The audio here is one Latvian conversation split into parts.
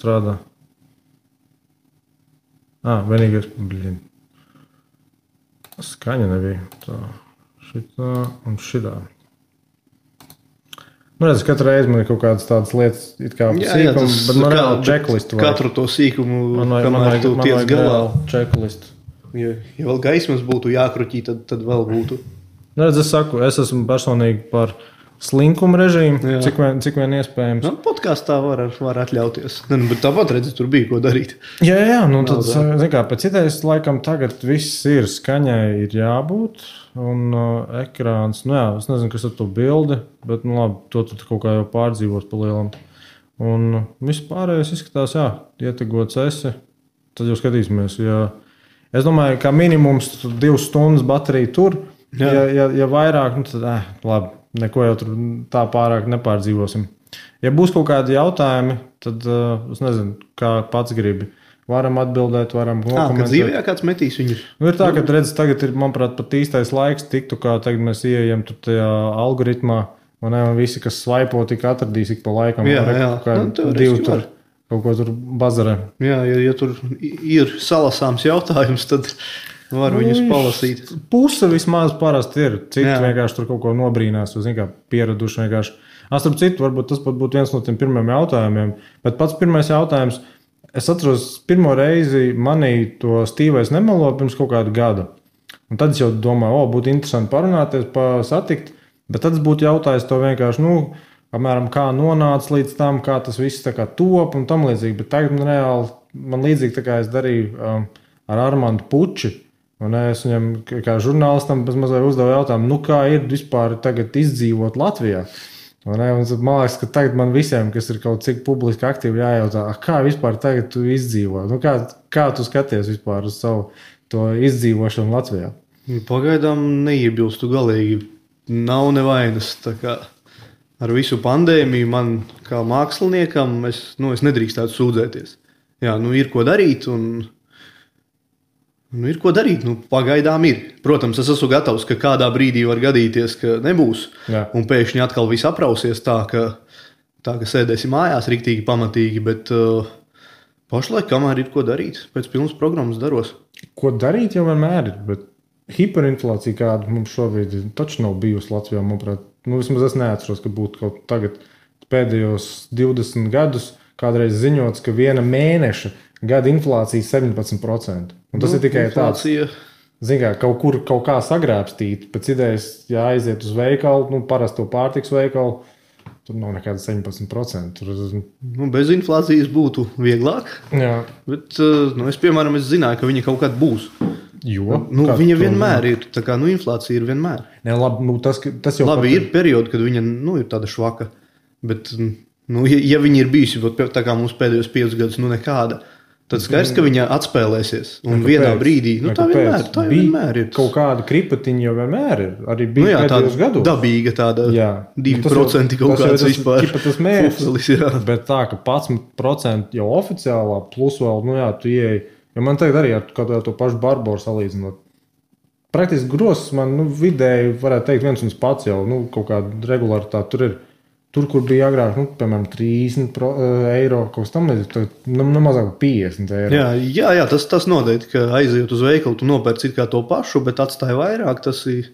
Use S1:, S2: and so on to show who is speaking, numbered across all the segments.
S1: strādā. Vienīgais, skaņa nebija. Tā, šitā un šitā. Redz, katru reizi man ir kaut kādas tādas lietas, it kā sīkums, bet man reāli checklistu vajag.
S2: Katru to sīkumu, kamēr tu tiec galā.
S1: Checklistu.
S2: Ja vēl gaismas būtu jākruķī, tad vēl būtu.
S1: Redz, es esmu personīgi par slinkumu režīmu, cik vien iespējams.
S2: Podkāstā var atļauties. Bet tāpat redzi, tur bija ko darīt.
S1: Jā, tad, zin kā, pēc idejas laikam tagad viss ir skaņai ir jābūt. Un ekrāns, es nezinu, kas ar to bildi, bet, labi, to tu kaut kā jau pārdzīvos pa lielam. Un viss pārējais izskatās, ietegots esi, tad jau skatīsimies. Es domāju, ka minimums 2 stundas baterija tur, ja vairāk, tad, labi, neko jau tur tā pārāk nepārdzīvosim. Ja būs kaut kādi jautājumi, tad, es nezinu, kā pats gribi. Varam atbildēt, varam
S2: komentēt. Kad dzīvē kāds metīs viņu?
S1: Ir tā, ka redz, tagad ir, manuprāt, pat īstais laiks tiktu, kā tagad mēs ieejam tur tajā algoritmā, un visi, kas svaipo, tik atradīs ik pa laikam. Divi tur kaut ko tur bazarē.
S2: Jā, ja tur ir salasāms jautājums, tad var viņus palasīt.
S1: Puse vismaz parasti ir. Citi vienkārši tur kaut ko nobrīnās, kā pieraduši vienkārši. Starp citu, varbūt tas pat būtu viens no tiem pirmiem jautājumiem, bet pats pirmais jautājums. Es atceros, pirmo reizi manī to Stīvais nemelo pirms kaut kādu gadu. Un tad es jau domāju, būtu interesanti parunāties, satikt, bet tad es būtu jautājis to vienkārši, apmēram kā nonāca līdz tam, kā tas viss tā kā top un tam līdzīgi. Bet tagad man līdzīgi tā kā es darīju ar Armandu Puči. Un es viņam kā žurnālistam mazliet uzdevu jautājumu, kā ir vispār tagad izdzīvot Latvijā. Man liekas, ka tagad man visiem, kas ir kaut cik publiski aktīvi jājautā, kā vispār tagad tu izdzīvo? Kā tu skaties vispār uz savu to izdzīvošanu Latvijā?
S2: Pagaidām neiebilstu galīgi. Nav nevainas. Tā kā ar visu pandēmiju man kā māksliniekam es nedrīkstētu sūdzēties. Jā, ir ko darīt un... ir ko darīt, pagaidām ir. Protams, es esmu gatavs, ka kādā brīdī var gadīties, ka nebūs. Un pēkšņi atkal viss aprausies tā, ka sēdēsim mājās riktīgi pamatīgi, bet pašlaik kamēr ir ko darīt, pēc pilnas programmas daros.
S1: Ko darīt jau vienmēr ir, bet hiperinflācija kāda mums šobrīd taču nav bijusi Latvijā, manuprāt. Vismaz es neatceros, ka būtu kaut tagad pēdējos 20 gadus kādreiz ziņots, ka viena mēneša gada inflācija 17%. Un tas ir tikai tāds, kaut kā sagrābstīt. Pēc idejas, ja aiziet uz veikalu, parasto pārtiks veikalu, tur nav nekāda 17%.
S2: Bez inflācijas būtu vieglāk.
S1: Jā.
S2: Bet, es zināju, ka viņa kaut kad būs.
S1: Jo?
S2: Viņa vienmēr ir. Tā kā, inflācija ir vienmēr.
S1: Ne, labi, tas jau
S2: labi, ir periodi, kad viņa, ir tāda švaka. Bet, ja viņa ir bijusi, tā kā mums pēdējos 5 gadus, nekāda, tad skaidrs, ka viņa atspēlēsies. Un vienā brīdī, tā vienmēr ir.
S1: Kaut kāda kripatiņa jau vienmēr ir. Arī bija pēdējos gados.
S2: Dabīga tāda 2% kaut kāds vispār.
S1: Tas mērķis, bet tā, ka 11% jau oficiālā, plus vēl, tu ieeji. Jo man tagad arī ar to pašu Barboru salīdzinot. Praktiski grozs man, vidēji, varētu teikt, viens un pats jau, kaut kāda regularitāte tur ir. Tur, kur bija agrāk, piemēram, 30 eiro, kaut kas tam līdzīgs, mazāk 50 eiro.
S2: Jā, tas noteikti, ka aiziet uz veikalu, tu nopērci kā to pašu, bet atstāja vairāk, tas ir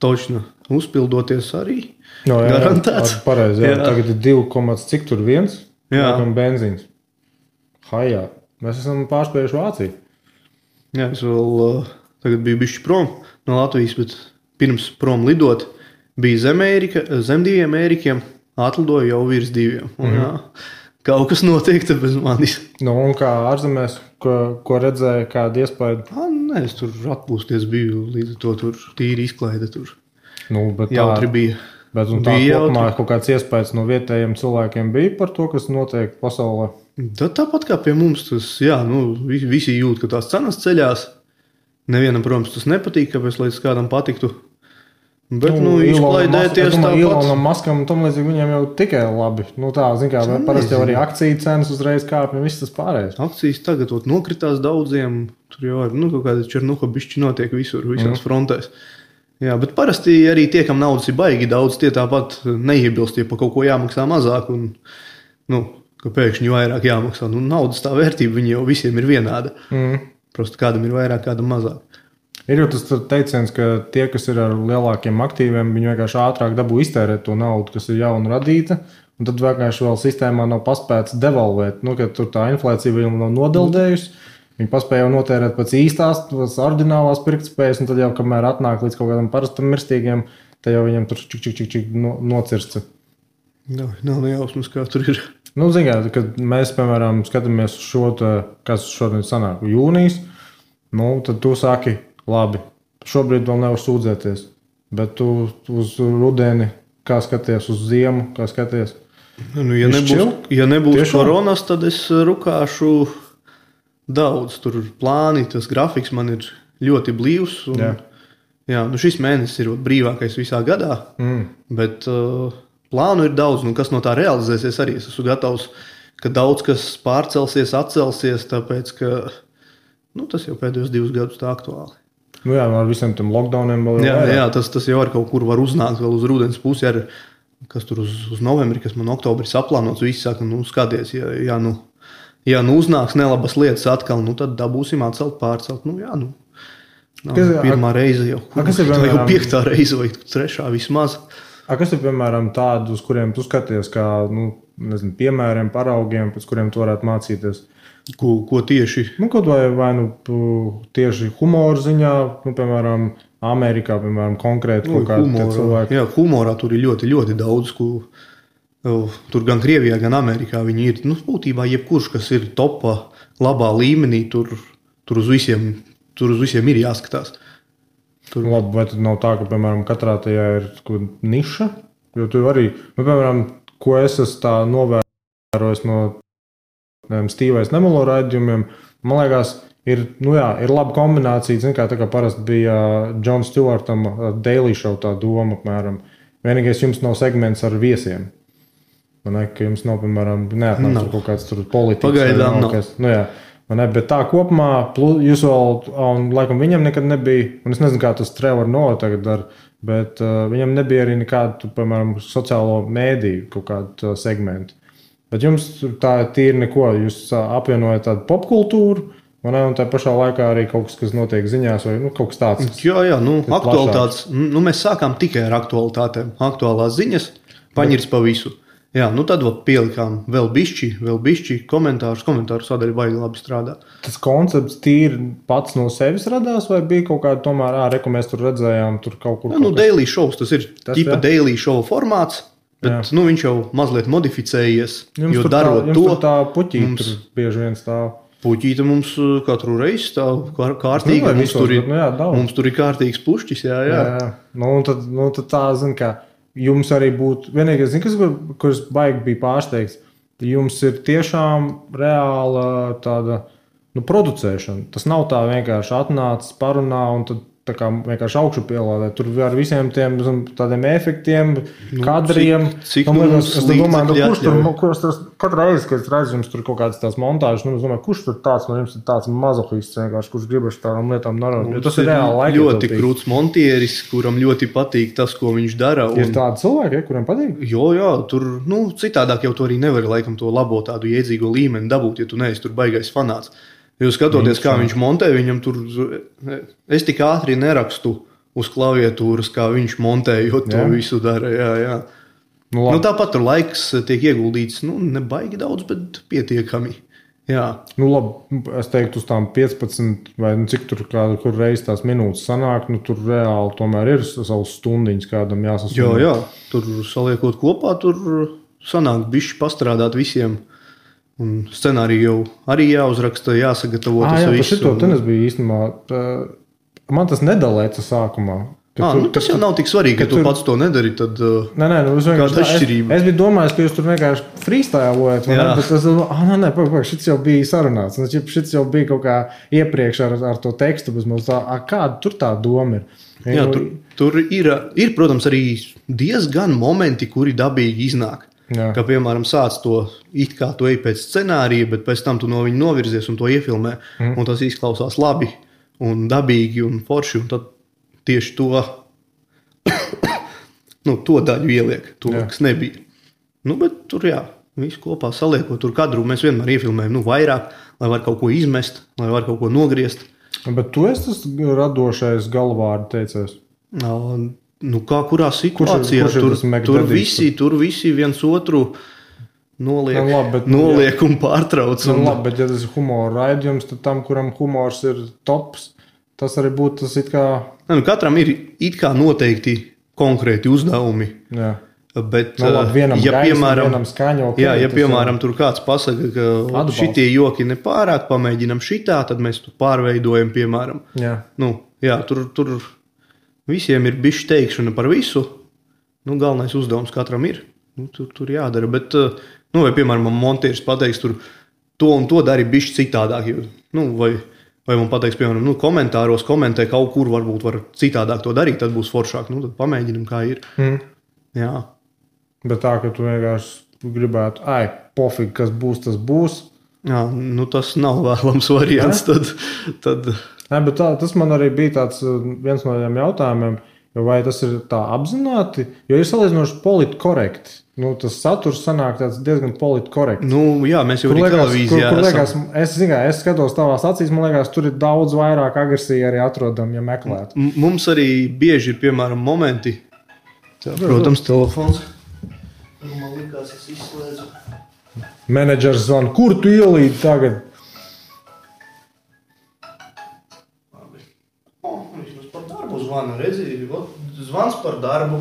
S2: točni uzpildoties arī. Garantēts.
S1: Pareizi, tagad ir 2, cik tur viens? Benzīns. Hajā. Mēs esam pārspējuši Vāciju.
S2: Jā, es vēl tagad biju bišķi prom no Latvijas, bet pirms prom lidot bija zem 2 Ērikiem. Atlidoju jau virs 2. Kaut kas notiek te bez manis.
S1: Un kā ārzemēs, ko redzēja, kāda iespēja?
S2: Nē, es tur atpūsties biju, līdz to tur tīri izklaide tur.
S1: Bet
S2: jautri bija.
S1: Bet un tā kopumā kaut kāds iespējas no vietējiem cilvēkiem bija par to, kas notiek pasaulē?
S2: Tāpat kā pie mums, tas, visi jūt, ka tās cenas ceļās. Nevienam, protams, tas nepatīk, kāpēc līdz kādam patiktu. Bet, izklaidēties tāpat.
S1: Ilonam Maskam un tam līdzīgi viņiem jau tikai labi. Parasti jau arī akciju cenas uzreiz kāpj un viss tas pārējais.
S2: Akcijas tagad nokritās daudziem. Tur jau ir, kaut kāda černuha bišķi notiek visās frontēs. Jā, bet parasti arī tie, kam naudas ir baigi daudz, tie tāpat neiebilst, ja pa kaut ko jāmaksā mazāk. Un, ka pēkšņi vairāk jāmaksā. Nu, naudas tā vērtība viņa jau visiem ir vienāda. Prosti kādam ir vairāk, kādam mazāk.
S1: Ir jau tas teiciens, ka tie, kas ir ar lielākiem aktīviem, viņi vienkārši ātrāk dabū iztērēt to naudu, kas ir jauna radīta, un tad vienkārši vēl sistēmā nav paspēts devalvēt. Nu, kad tur tā inflācija vēl nav nodeldējusi, viņi paspēja jau notērēt pēc īstās, pēc oriģinālās pirktspējas, un tad jau, kamēr atnāk līdz kaut kādam parastam mirstīgiem, tad jau viņam tur čik nocirsta.
S2: Nav nejausmas, kā tur ir.
S1: Nu, zināt, kad mēs, piemēram, skatāmies uz šo, kas šodien sanāk jūnijas, nu, tad tu saki, labi, šobrīd vēl nevar sūdzēties, bet tu uz rudeni, kā skaties uz ziemu, kā skaties?
S2: Nu, ja nebūs tiešām koronas, tad es rukāšu daudz. Tur plāni, tas grafiks man ir ļoti blīvs. Un, šis mēnesis ir brīvākais visā gadā, bet plānu ir daudz. Nu, kas no tā realizēsies arī? Es esmu gatavs, ka daudz kas pārcelsies, atcelsies, tāpēc, ka tas jau pēdējos 2 gadus tā aktuāli.
S1: Nu jā, ar visiem tiem lockdowniem vēl
S2: jā, tas jau ar kaut kur var uznākt vēl uz rudens pusi, kas tur uz novembri, kas man oktobri saplānots, visi saka, skaties, ja uznāks nelabas lietas atkal, tad dabūsim atcelt, pārcelt. Pirmā reize jau, jau 5. reize vai 3. vismaz.
S1: Kas ir, piemēram, tādi, uz kuriem tu skaties, kā, piemēriem, paraugiem, pēc kuriem tu varētu mācīties?
S2: Ko tieši?
S1: Kaut vai tieši humora ziņā, piemēram, Amerikā, piemēram, konkrēti kaut kādi cilvēki.
S2: Jā, humorā tur ir ļoti, ļoti daudz, tur gan Krievijā, gan Amerikā viņi ir. Būtībā jebkurš, kas ir topā, labā līmenī, tur uz visiem ir jāskatās.
S1: Labi, vai tad nav tā, ka, piemēram, katrā tajā ir niša? Jo tu arī, piemēram, ko es esmu tā novērojis no Stīvais Nemelo raidījumiem, man liekas, ir laba kombinācija, zin, tā kā parasti bija Jon Stewartam Daily Show tā doma, apmēram. Vienīgais jums nav segments ar viesiem. Ka jums nav, piemēram, neatnāc kaut kāds tur politikas.
S2: Pagaidām nav.
S1: Bet tā kopumā, jūs vēl, un laikam viņam nekad nebija, un es nezinu, kā tas Trevor Noah tagad dara, bet viņam nebija arī nekādu, piemēram, sociālo mēdīju kaut kādu segmentu. Bet jums tā tīri neko, jūs apvienojat tādu popkultūru, un tā pašā laikā arī kaut kas notiek ziņās, vai kaut kas tāds.
S2: Jā, aktualitātes. Mēs sākām tikai ar aktualitātēm. Aktuālās ziņas, paņirs pa visu. Jā, tad pielikām vēl bišķi komentāru sadaļa baigi labi strādā.
S1: Tas koncepts tīri pats no sevis radās, vai bija kaut kāda tomēr, mēs tur redzējām, tur kaut kur?
S2: Daily shows, tas ir tipa daily show formāts. Bet viņš jau mazliet modificējies, jo darot to.
S1: Jums tā puķīte mums bieži vien stāv.
S2: Puķīte mums katru reizi stāv kārtīgi. Mums tur ir kārtīgs pušķis, jā.
S1: Tad tā, zin kā, jums arī būtu, vienīgais, kurš baigi bija pārsteigts, jums ir tiešām reāla tāda, producēšana. Tas nav tā vienkārši atnācis, parunā un tad tā kā vienkārši augšu pielādē. Tur ar visiem tiem tādiem efektiem, kadriem.
S2: Cik mums
S1: kurš tas katru reizi, kad es redzu jums tur kaut kādas tās montāžas, es domāju, kurš tur tāds no jums ir tāds mazohists vienkārši, kurš gribas tādām lietām darot. Jo tas ir reāli laika.
S2: Ļoti krūts montieris, kuram ļoti patīk tas, ko viņš dara.
S1: Ir tādi cilvēki, kuriem patīk?
S2: Jā, tur, citādāk jau tu arī nevari laikam to labo tādu iedzīgo līmeni dabūt, ja tu neesi tur baigais fanāts. Jūs skatoties, kā viņš montē, viņam tur, es tik ātri nerakstu uz klaviatūras, kā viņš montējot to visu dara, jā. Tāpat tur laiks tiek ieguldīts, ne baigi daudz, bet pietiekami, jā.
S1: Labi, es teiktu uz tām 15 vai cik tur kur reiz tās minūtes sanāk, tur reāli tomēr ir savas stundiņas kādam jāsasūna.
S2: Jā, tur saliekot kopā, tur sanāk bišķi pastrādāt visiem. Un scenāriju jau arī jāuzraksta, jāsagatavo tas viss.
S1: Šito tenis bija īstenībā, man tas nedalēca sākumā.
S2: Tas jau nav tik svarīgi, ka tu pats to nedari, tad kāda atšķirība?
S1: Es biju domājis, ka jūs tur vienkārši freestylojat, bet es šits jau bija sarunāts. Šits jau bija kaut kā iepriekš ar to tekstu, bet mums kāda tur tā doma ir?
S2: Jā, tur ir, protams, arī diezgan momenti, kuri dabīgi iznāk.
S1: Jā.
S2: Ka, piemēram, sāc to it kā tu ej pēc scenārija, bet pēc tam tu no viņa novirzies un to iefilmē, un tas izklausās labi un dabīgi un forši, un tad tieši to to daļu ieliek, to, kas nebija. Bet tur, jā, Visu kopā saliekot tur kadru, mēs vienmēr iefilmējam vairāk, lai var kaut ko izmest, lai var kaut ko nogriezt.
S1: Bet tu esi tas radošais galvārdu teicējs?
S2: Kā kurā situācijā? Tur visi viens otru noliek un pārtrauc.
S1: Labi, bet ja tas ir humora raidījums, tad tam, kuram humors ir tops, tas arī būtu tas it kā...
S2: Katram ir it kā noteikti konkrēti uzdevumi.
S1: Jā.
S2: Bet,
S1: vienam vienam skaņo.
S2: Piemēram, tur kāds pasaka, ka šitie joki nepārāk, pamēģinam šitā, tad mēs tu pārveidojam, piemēram.
S1: Jā.
S2: Tur visiem ir bišķi teikšana par visu. Galvenais uzdevums katram ir. Tur jādara. Bet, vai, piemēram, man montieris pateiks, tur to un to dari bišķi citādāk. Vai man pateiks, piemēram, komentāros komentē kaut kur varbūt var citādāk to darīt, tad būs foršāk. Tad pamēģinam, kā ir. Jā. Bet tā, ka tu vienkārši gribētu, pofīgi, kas būs, tas būs. Jā, tas nav vēlams variants. Tad...
S1: Bet tas man arī bija tāds viens no tiem jautājumiem, vai tas ir tā apzināti, jo ir salīdzinoši politkorekti. Tas saturs sanāk tāds diezgan politkorekts.
S2: Jā, mēs jau arī televīzijā esam.
S1: Es skatos tavās acīs, man liekas, tur ir daudz vairāk agresija arī atrodam, ja meklētu.
S2: Mums arī bieži ir, piemēram, momenti. Protams, telefons. Man likās, es izslēdzu.
S1: Menedžers zvana, kur tu ielīdi tagad?
S2: Viņš par darbu zvana, redzi, zvans par darbu.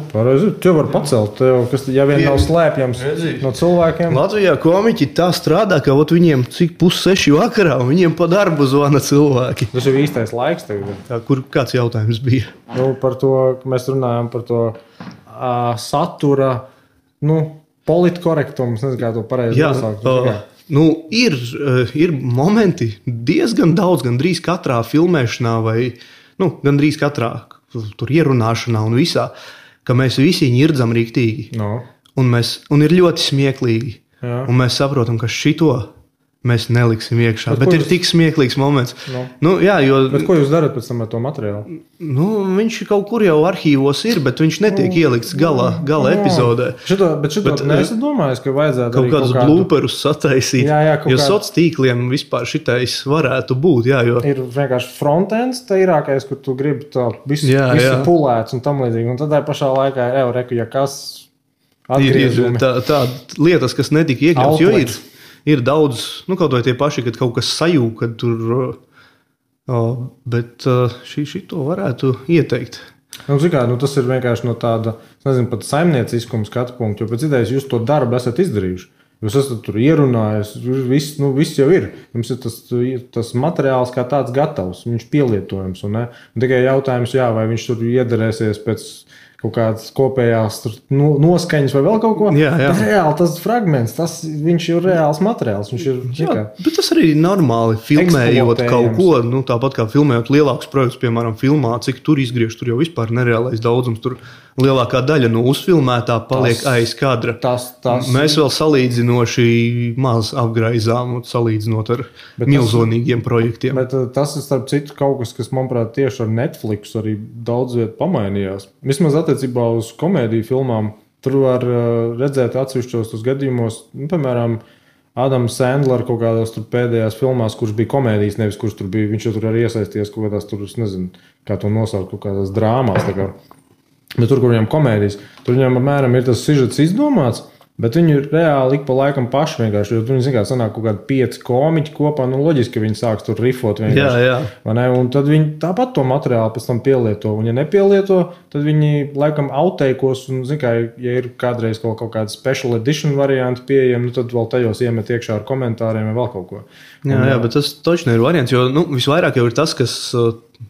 S1: Tev var pacelt, kas ja vien nav slēpjams no cilvēkiem.
S2: Latvijā komiķi tā strādā, ka viņiem cik 5:30 vakarā, un viņiem pa darbu zvana cilvēki.
S1: Tas ir īstais laiks tagad.
S2: Kāds jautājums bija?
S1: Par to, mēs runājam par to satura, politkorektumu, nezinu, kā to pareizi nosaukt.
S2: Ir momenti diezgan daudz, gandrīz katrā filmēšanā vai, gandrīz katrā tur ierunāšanā un visā, ka mēs visi ņirdzam riktīgi. Un ir ļoti smieklīgi.
S1: Jā.
S2: Un mēs saprotam, ka šito mēs neliksim iekšā. Bet ir tik smieklīgs moments.
S1: Bet ko jūs darat pēc tam ar to materiālu?
S2: Viņš kaut kur jau arhīvos ir, bet viņš netiek ielikts gala epizodē.
S1: Bet neesat domājis, ka vajadzētu
S2: kaut kādus blūperus sataisīt. Jo soc tīkliem vispār šitais varētu būt.
S1: Ir vienkārši frontends tīrākais, kur tu gribi to visu pulēts un tam līdzīgi. Un tad pašā laikā ja kas atgriežumi.
S2: Tā lietas, kas netika iekļauts, jo ir daudz, kaut vai tie paši, kad kaut kas sajūg, kad tur, bet šito varētu ieteikt.
S1: Tas ir vienkārši no tāda, nezinu, pat saimnieciskuma skatu punktu, jo pēc idejas jūs to darbu esat izdarījuši. Jūs esat tur ierunājis, viss jau ir. Jums ir tas materiāls kā tāds gatavs, viņš pielietojams. Un tikai jautājums, vai viņš tur iederēsies pēc kaut kādas kopējās noskaņas vai vēl kaut ko. Bet reāli tas fragments, viņš ir reāls materiāls.
S2: Bet tas arī ir normāli filmējot kaut ko, tāpat kā filmējot lielākus projektus, piemēram, filmā, cik tur izgriež, tur jau vispār nereālais daudzums, tur lielākā daļa no uzfilmētā paliek aiz kadra. Mēs vēl salīdzinoši maz apgraizām, salīdzinot ar milzonīgiem projektiem.
S1: Bet tas ir starp citu kaut kas manuprāt, tieši ar Netflix arī daudz viet pamainījās. Vismaz attiecībā uz komēdiju filmām, tur var redzēt atsevišķos tos gadījumos, piemēram, Adams Sandler kaut kādās tur pēdējās filmās, kurš bija komēdijas, nevis kurš tur bija, viņš jau tur arī iesaisties kaut kādās tur, es nezinu, kā to nosaukt, kaut kādās drāmās, tā kā. Bet tur, kur viņam komēdijas, tur viņam apmēram ir tas sižets izdomāts, bet viņi reāli ik pa laikam paši vienkārši, jo tur viņi sanāk kaut kādi 5 komiķi kopā, loģiski, ka viņi sāks tur rifot vienkārši. Un tad viņi tāpat to materiālu pēc tam pielieto, un ja nepielieto, tad viņi laikam outteikos, un ja ir kādreiz kaut kāda special edition varianti pieejami, tad vēl tajos iemet iekšā ar komentāriem vai vēl kaut ko.
S2: Bet tas točni ir variants, jo visvairāk jau ir tas, kas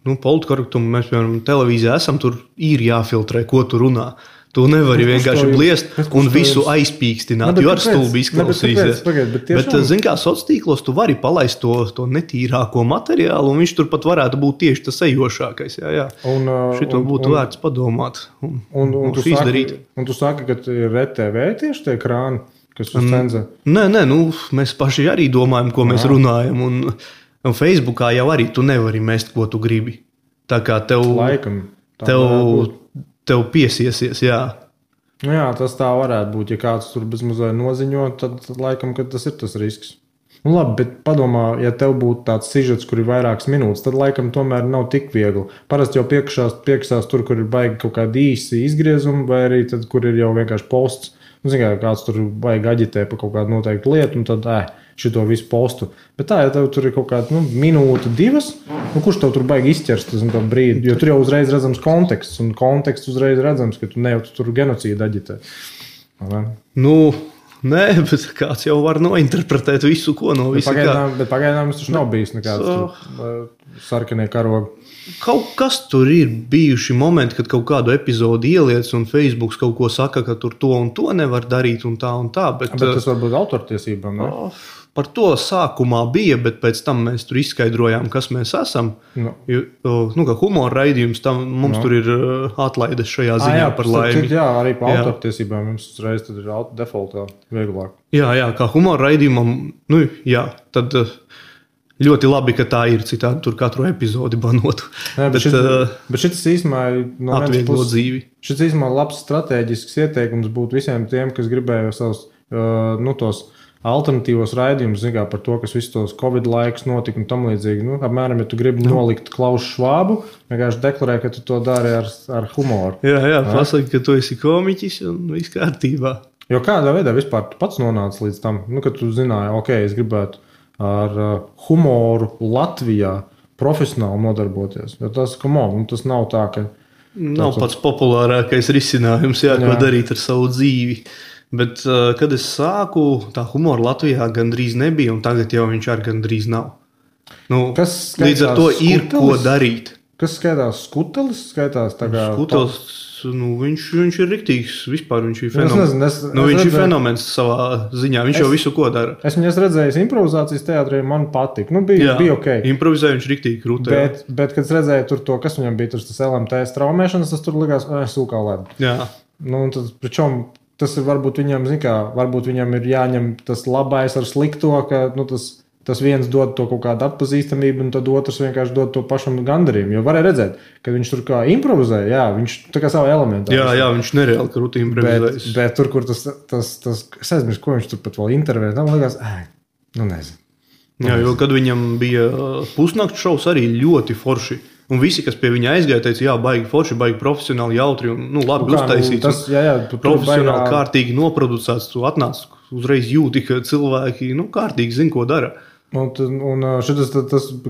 S2: politkorektumu mēs, piemēram, televīzijā esam, tur ir jāfiltrē, ko tu runā. Tu nevari vienkārši bliest un visu aizpīkstināt, jo ar stulbi izklausīsies. Bet zini kā, sociālos tu vari palaist to netīrāko materiālu, un viņš turpat varētu būt tieši tas ejošākais. Šito būtu vērts padomāt un izdarīt.
S1: Un tu saki, ka ir RTV tieši tie krāni, kas uz cenzē?
S2: Nē, mēs paši arī domājam, ko mēs runājam, un Facebookā jau arī tu nevari mest, ko tu gribi. Tā kā tev piesiesies, jā.
S1: Jā, tas tā varētu būt. Ja kāds tur bezmazliet noziņo, tad laikam, kad tas ir tas risks. Nu, labi, bet padomā, ja tev būtu tāds sižets, kur ir vairākas minūtes, tad laikam tomēr nav tik viegli. Parasti jau piekšās tur, kur ir baigi kaut kādi īsi izgriezumi, vai arī tad, kur ir jau vienkārši posts. Nu, zin, kāds tur baigi aģitē par kaut kādu noteiktu lietu, un tad šito visu postu. Bet tā, ja tev tur ir kaut kāda minūte, divas, kurš tev tur baigi izķers tas brīdi? Jo tur jau uzreiz redzams konteksts, un konteksts uzreiz redzams, ka tu ne jau tur genocīdu aģitē.
S2: Nē, bet kāds jau var nointerpretēt visu, ko no visa.
S1: Bet pagaidām tas taču nav bijis nekāds sarkanie karogi.
S2: Kaut kas tur ir bijuši momenti, kad kaut kādu epizodi ieliec un Facebooks kaut ko saka, ka tur to un to nevar darīt un tā un tā. Bet
S1: tas varbūt autortiesībām, ne?
S2: Par to sākumā bija, bet pēc tam mēs tur izskaidrojām, kas mēs esam. Kā humora raidījums, mums tur ir atlaides šajā ziņā par laimi.
S1: Jā, arī par autortiesībām jums uzreiz tad ir defaultā vieglāk.
S2: Jā, kā humora raidījumam, tad ļoti labi, ka tā ir, citādi tur katru epizodi banotu.
S1: Bet šis īstenībā no
S2: atvieglo dzīvi.
S1: Šis īstenībā labs strateģisks ieteikums būtu visiem tiem, kas gribēja savus tos alternatīvos raidījumus, par to, kas visus tos Covid laikus notika un tam līdzīgi. Apmēram, ja tu gribi nolikt Klausu Švābu, vienkārši deklarē, ka tu to dari ar humoru.
S2: Jā, pasaki, ka tu esi komiķis un viss kārtībā.
S1: Jo kādā veidā vispār tu pats nonāci līdz tam, kad tu zināji, es gribētu ar humoru Latvijā profesionāli nodarboties. Jo tas nav tā, ka...
S2: Nav pats populārākais risinājums, ko darīt ar savu dzīvi. Bet, kad es sāku, tā humora Latvijā gandrīz nebija, un tagad jau viņš arī gandrīz nav. Līdz ar to ir ko darīt.
S1: Kas skaitās skutelis?
S2: Skutelis, viņš ir riktīgs, vispār viņš ir fenomens. Viņš ir fenomens savā ziņā, viņš jau visu ko dara.
S1: Es viņas redzēju improvizācijas teātrī, man patika. Bija ok.
S2: Improvizēja viņš riktīgi krūtē.
S1: Bet, kad es redzēju tur to, kas viņam bija, tas LMT straumēšanas, tas tur likās, sūkā lēd.
S2: Jā.
S1: Tad, pričom, tas ir varbūt viņam, varbūt viņam ir jāņem tas labais ar slikto, ka tas viens dod to kaut kādu atpazīstamību, un tad otrs vienkārši dod to pašam gandarījumu. Jo varēja redzēt, ka viņš tur kā improvizēja, viņš tā kā savu elementu.
S2: Jā, viņš nereāli krūti improvizējas.
S1: Bet tur, kur tas es aizmirsu, ko viņš tur pat vēl intervēja, tam likās, nezinu.
S2: Jā, jo kad viņam bija pusnakts šovs arī ļoti forši. Un visi, kas pie viņa aizgāja, teica, baigi forši, baigi profesionāli, jautri un labi uztaisīts. Profesionāli kārtīgi noproducēts. Tu atnāc uzreiz jūti, ka cilvēki kārtīgi zina, ko dara.
S1: Un šitas,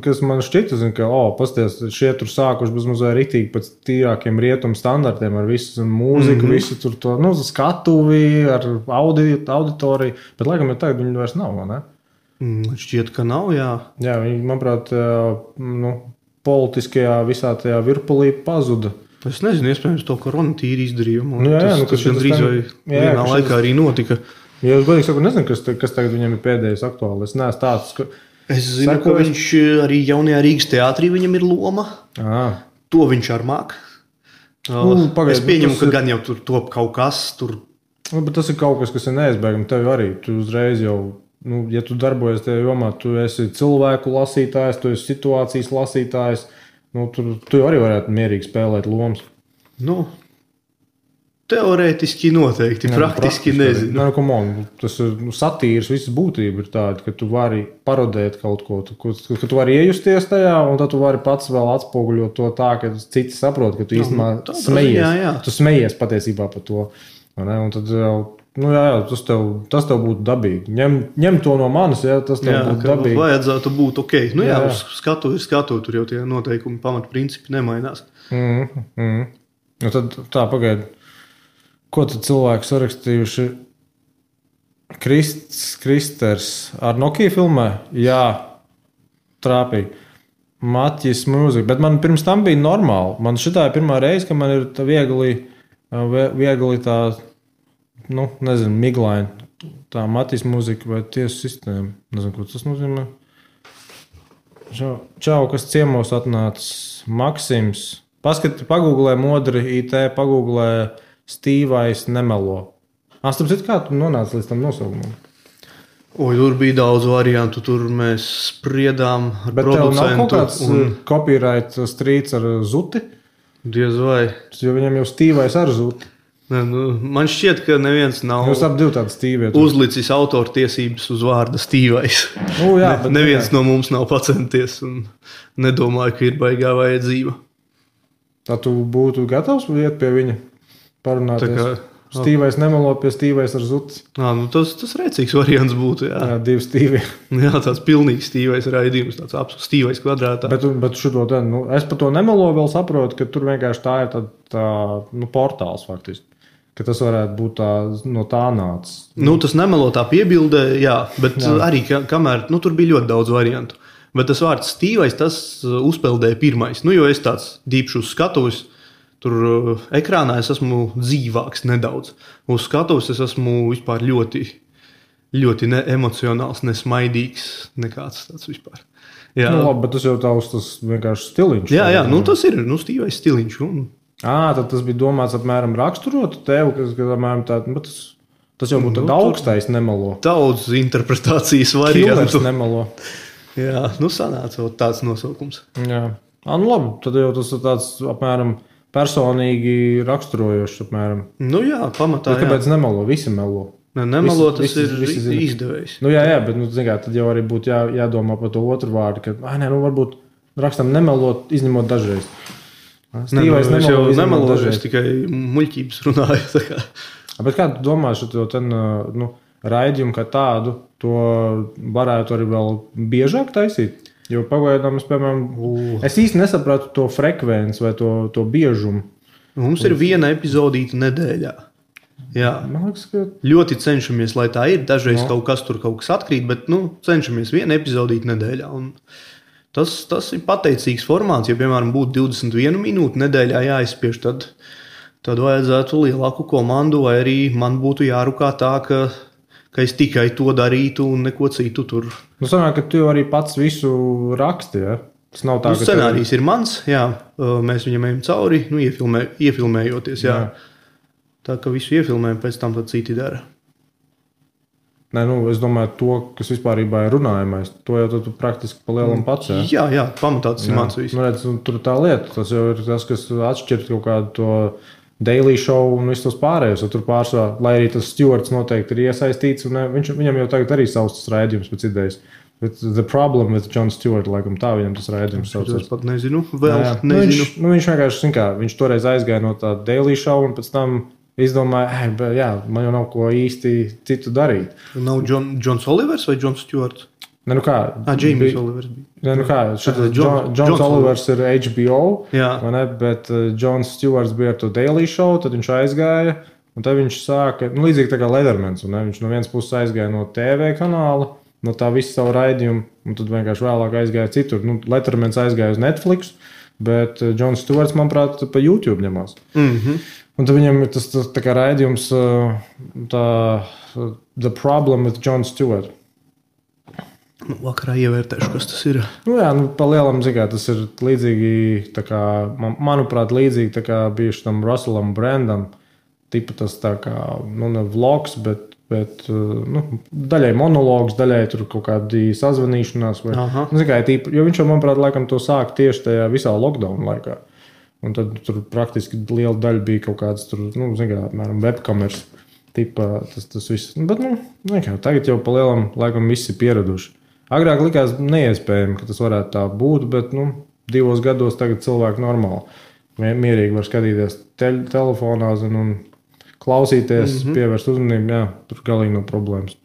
S1: kas man šķita, ka, pasties, šie tur sākuši bezmazliet riktīgi pēc tīrākiem rietumu standartiem ar visu mūziku, visu tur to, skatuvi, ar auditoriju, bet laikam, ja tagad viņi vairs nav, vai ne?
S2: Šķiet, ka nav, jā.
S1: Jā, viņi, manuprāt, politiskajā visā tajā virpulī pazuda.
S2: Es nezinu, iespējams, to korona tīri izdarījumu. Tas
S1: gandrīz
S2: vai vienā laikā arī notika.
S1: Ja es godīgi saku, nezinu, kas tagad viņam ir pēdējais aktuāli. Es neesmu tāds, ka...
S2: Es zinu, ka viņš arī jaunajā Rīgas teātrī viņam ir loma. To viņš ar māk. Es pieņemu, ka gan jau tur top kaut kas.
S1: Bet tas ir kaut kas ir neizbēgami. Tev arī, tu uzreiz jau... ja tu darbojies tajā jomā, tu esi cilvēku lasītājs, tu esi situācijas lasītājs, tu arī varētu mierīgi spēlēt lomas.
S2: Teorētiski noteikti, praktiski nezinu.
S1: Tas ir satīras, visas būtība ir tāda, ka tu vari parodēt kaut ko, ka tu vari iejusties tajā, un tad tu vari pats vēl atspoguļot to tā, ka citi saprot, ka tu īstenībā smejies. Tu smejies patiesībā par to. Un tad tas tev būtu dabīgi. Ņem to no manis, tas tev būtu dabīgi.
S2: Vajadzētu būt ok. Uz skatu ir skatu, tur jau tie noteikumi, pamatprincipi nemainās.
S1: Tad tā, pagaidi. Ko tad cilvēki sarakstījuši? Kristers ar Nokia filmē? Jā, trāpīgi. Matjis mūzika, bet man pirms tam bija normāli. Man šitā ir pirmā reize, ka man ir tā viegli tā... nezinu, miglaini. Tā Matīs mūzika vai tiesu sistēma. Nezinu, ko tas nozīmē. Čau, kas ciemos atnācis. Maksims. Pagūglē modri IT, pagūglē Stīvais nemelo. Starp citu, kā tu nonāci līdz tam nosaukumam?
S2: Tur bija daudz variantu. Tur mēs spriedām ar
S1: bet
S2: producentu.
S1: Bet tev nav kaut kāds copyright strīds ar zuti?
S2: Diez vai.
S1: Jo viņam jau Stīvais ar zuti.
S2: Man šķiet, ka neviens nav uzlicis autortiesības uz vārda Stīvais.
S1: Jā,
S2: neviens no mums nav pacenties un nedomāju, ka ir baigā vajadzība.
S1: Tā tu būtu gatavs iet pie viņa parunāties? Stīvais nemelo pie Stīvais ar zuti.
S2: Tas rēcīgs variants būtu, jā.
S1: Jā, 2 Stīvi.
S2: Jā, tāds pilnīgs Stīvais raidījums, tāds absolūts Stīvais kvadrātā.
S1: Bet šito es par to nemelo vēl saprotu, ka tur vienkārši tā ir tā portāls faktiski. Ka tas varētu būt no tā nācis.
S2: Tas nemelo tā piebildē, jā, bet arī kamēr, tur bija ļoti daudz variantu. Bet tas vārds Stīvais, tas uzpeldēja pirmais. Jo es tāds dīpšu uz skatuves, tur ekrānā es esmu dzīvāks nedaudz. Uz skatuves es esmu vispār ļoti, ļoti neemocionāls, nesmaidīgs, nekāds tāds vispār. Jā.
S1: Labi, bet tas jau tas vienkārši stiliņš.
S2: Jā, tas ir Stīvais stiliņš.
S1: Tad tas bija domāts apmēram raksturot tev, kas apmēram tas jau būtu augstais nemelo.
S2: Daudz interpretācijas variantu.
S1: Killers nemelo.
S2: Jā, sanāca tāds nosaukums.
S1: Jā. Labi, tad jau tas ir tāds apmēram personīgi raksturojošs apmēram.
S2: Jā, pamatā.
S1: Kāpēc nemelo? Visi melo.
S2: Nemelo tas ir izdevējs.
S1: Jā, bet tad jau arī būtu jādomā par to otru vārdu, ka varbūt rakstam nemelot, izņemot dažreiz.
S2: Stīvais nemelo, es tikai muļķības runāju.
S1: Bet kā tu domā, šo raidījumu kā tādu, to varētu arī vēl biežāk taisīt? Jo pagaidām es īsti nesapratu to frekvenci vai to biežumu.
S2: Mums ir viena epizodīta nedēļā. Jā.
S1: Man liekas, ka
S2: ļoti cenšamies, lai tā ir. Dažreiz kaut kas atkrīt, bet cenšamies viena epizodīta nedēļā. Un tas ir pateicīgs formāts. Ja, piemēram, būtu 21 minūte nedēļā jāizspiež, tad vajadzētu lielāku komandu, vai arī man būtu jārukā tā, ka es tikai to darītu un neko citu tur.
S1: Sanāk, ka tu jau arī pats visu raksti, ja? Tas nav tā, ka
S2: scenārijs ir mans, jā. Mēs viņam ejam cauri, iefilmējoties, jā. Tā, ka visu iefilmējam, pēc tam tad citi dara.
S1: Nē, es domāju, to, kas vispārībā ir runājamais, to jau tu praktiski pa lielam pats, jā?
S2: Jā, pamatā tas ir mans viss.
S1: Tur tā lieta, tas jau ir tas, kas atšķirt kaut kādu to Daily Show un visus tos pārējos. Tur pārsvarā, lai arī tas Stewarts noteikti ir iesaistīts, un viņam jau tagad arī savs tas raidījums pēc idejas. But the problem with Jon Stewart, laikam tā viņam tas raidījums saucās.
S2: Es pat nezinu, nezinu.
S1: Viņš vienkārši, viņš toreiz aizgāja no tā Daily Show un pēc tam izdomāja, man jau nav ko īsti citu darīt.
S2: Nav Jons Olivers vai Jons Stewarts? James Olivers bija.
S1: Jons Olivers ir HBO, bet Jons Stewarts bija ar to Daily Show, tad viņš aizgāja, un tad viņš sāka, līdzīgi tā kā Lettermans, un viņš no vienas puses aizgāja no TV kanāla, no tā visu savu raidījumu, un tad vienkārši vēlāk aizgāja citur. Lettermans aizgāja uz Netflix, bet Jons Stewarts, manuprāt, pa YouTube ņemās. Un tad viņam ir tas tā kā raidījums The Problem with Jon Stewart.
S2: Vakarā ievērtēšu, kas tas ir.
S1: Pa lielam, tas ir līdzīgi, tā kā, manuprāt, līdzīgi tā kā bijuši tam Russellam Brandam. Tipa tas tā kā, ne vlogs, bet daļai monologs, daļai tur kaut kādi sazvanīšanās. Jo viņš jau, manuprāt, laikam to sāk tieši tajā visā lockdown laikā. Un tad tur praktiski liela daļa bija kaut kāds tur, apmēram webkameras tipa tas viss. Bet, tagad jau pa lielam laikam visi ir pieraduši. Agrāk likās neiespējami, ka tas varētu tā būt, bet 2 gados tagad cilvēki normāli. Mierīgi var skatīties telefonā un klausīties, pievērst uzmanību. Tur galīgi nav problēmas.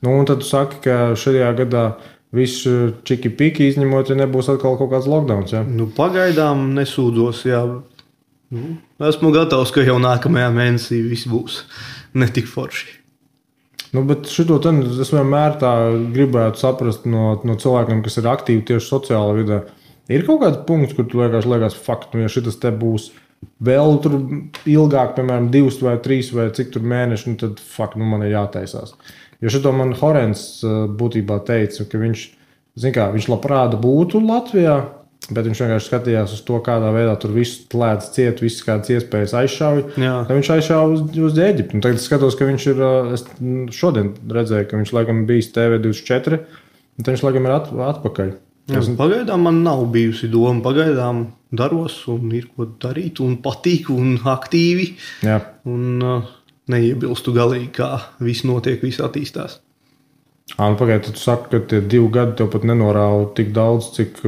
S1: Un tad tu saki, ka šajā gadā viss čiki-piki izņemot, ja nebūs atkal kaut kāds lockdowns. Ja?
S2: Pagaidām nesūdzos. Jā. Esmu gatavs, ka jau nākamajā mēnesī viss būs netik forši.
S1: Bet šito es vienmēr tā gribētu saprast no cilvēkiem, kas ir aktīvi tieši sociālā vidē. Ir kaut kāds punkts, kur tu liekas, ja šitas te būs vēl tur ilgāk, piemēram, 2 vai 3 vai cik tur mēneši, tad man ir jātaisās. Jo šito man Horens būtībā teica, ka viņš labprāt būtu Latvijā, bet viņš vienkārši skatījās uz to, kādā veidā tur viss lēdz ciet, visas kādas iespējas aizšauj. Tad viņš aizšauj uz Ēģipti. Tagad es skatos, ka viņš ir, es šodien redzēju, ka viņš laikam bijis TV24, un viņš laikam ir atpakaļ.
S2: Pagaidām man nav bijusi doma. Pagaidām daros un ir ko darīt un patīk un aktīvi.
S1: Jā.
S2: Un neiebilstu galīgi, kā viss notiek, viss attīstās.
S1: Nu, pagaid, tu saki, ka tie 2 gadi tev pat nenorāva tik daudz, cik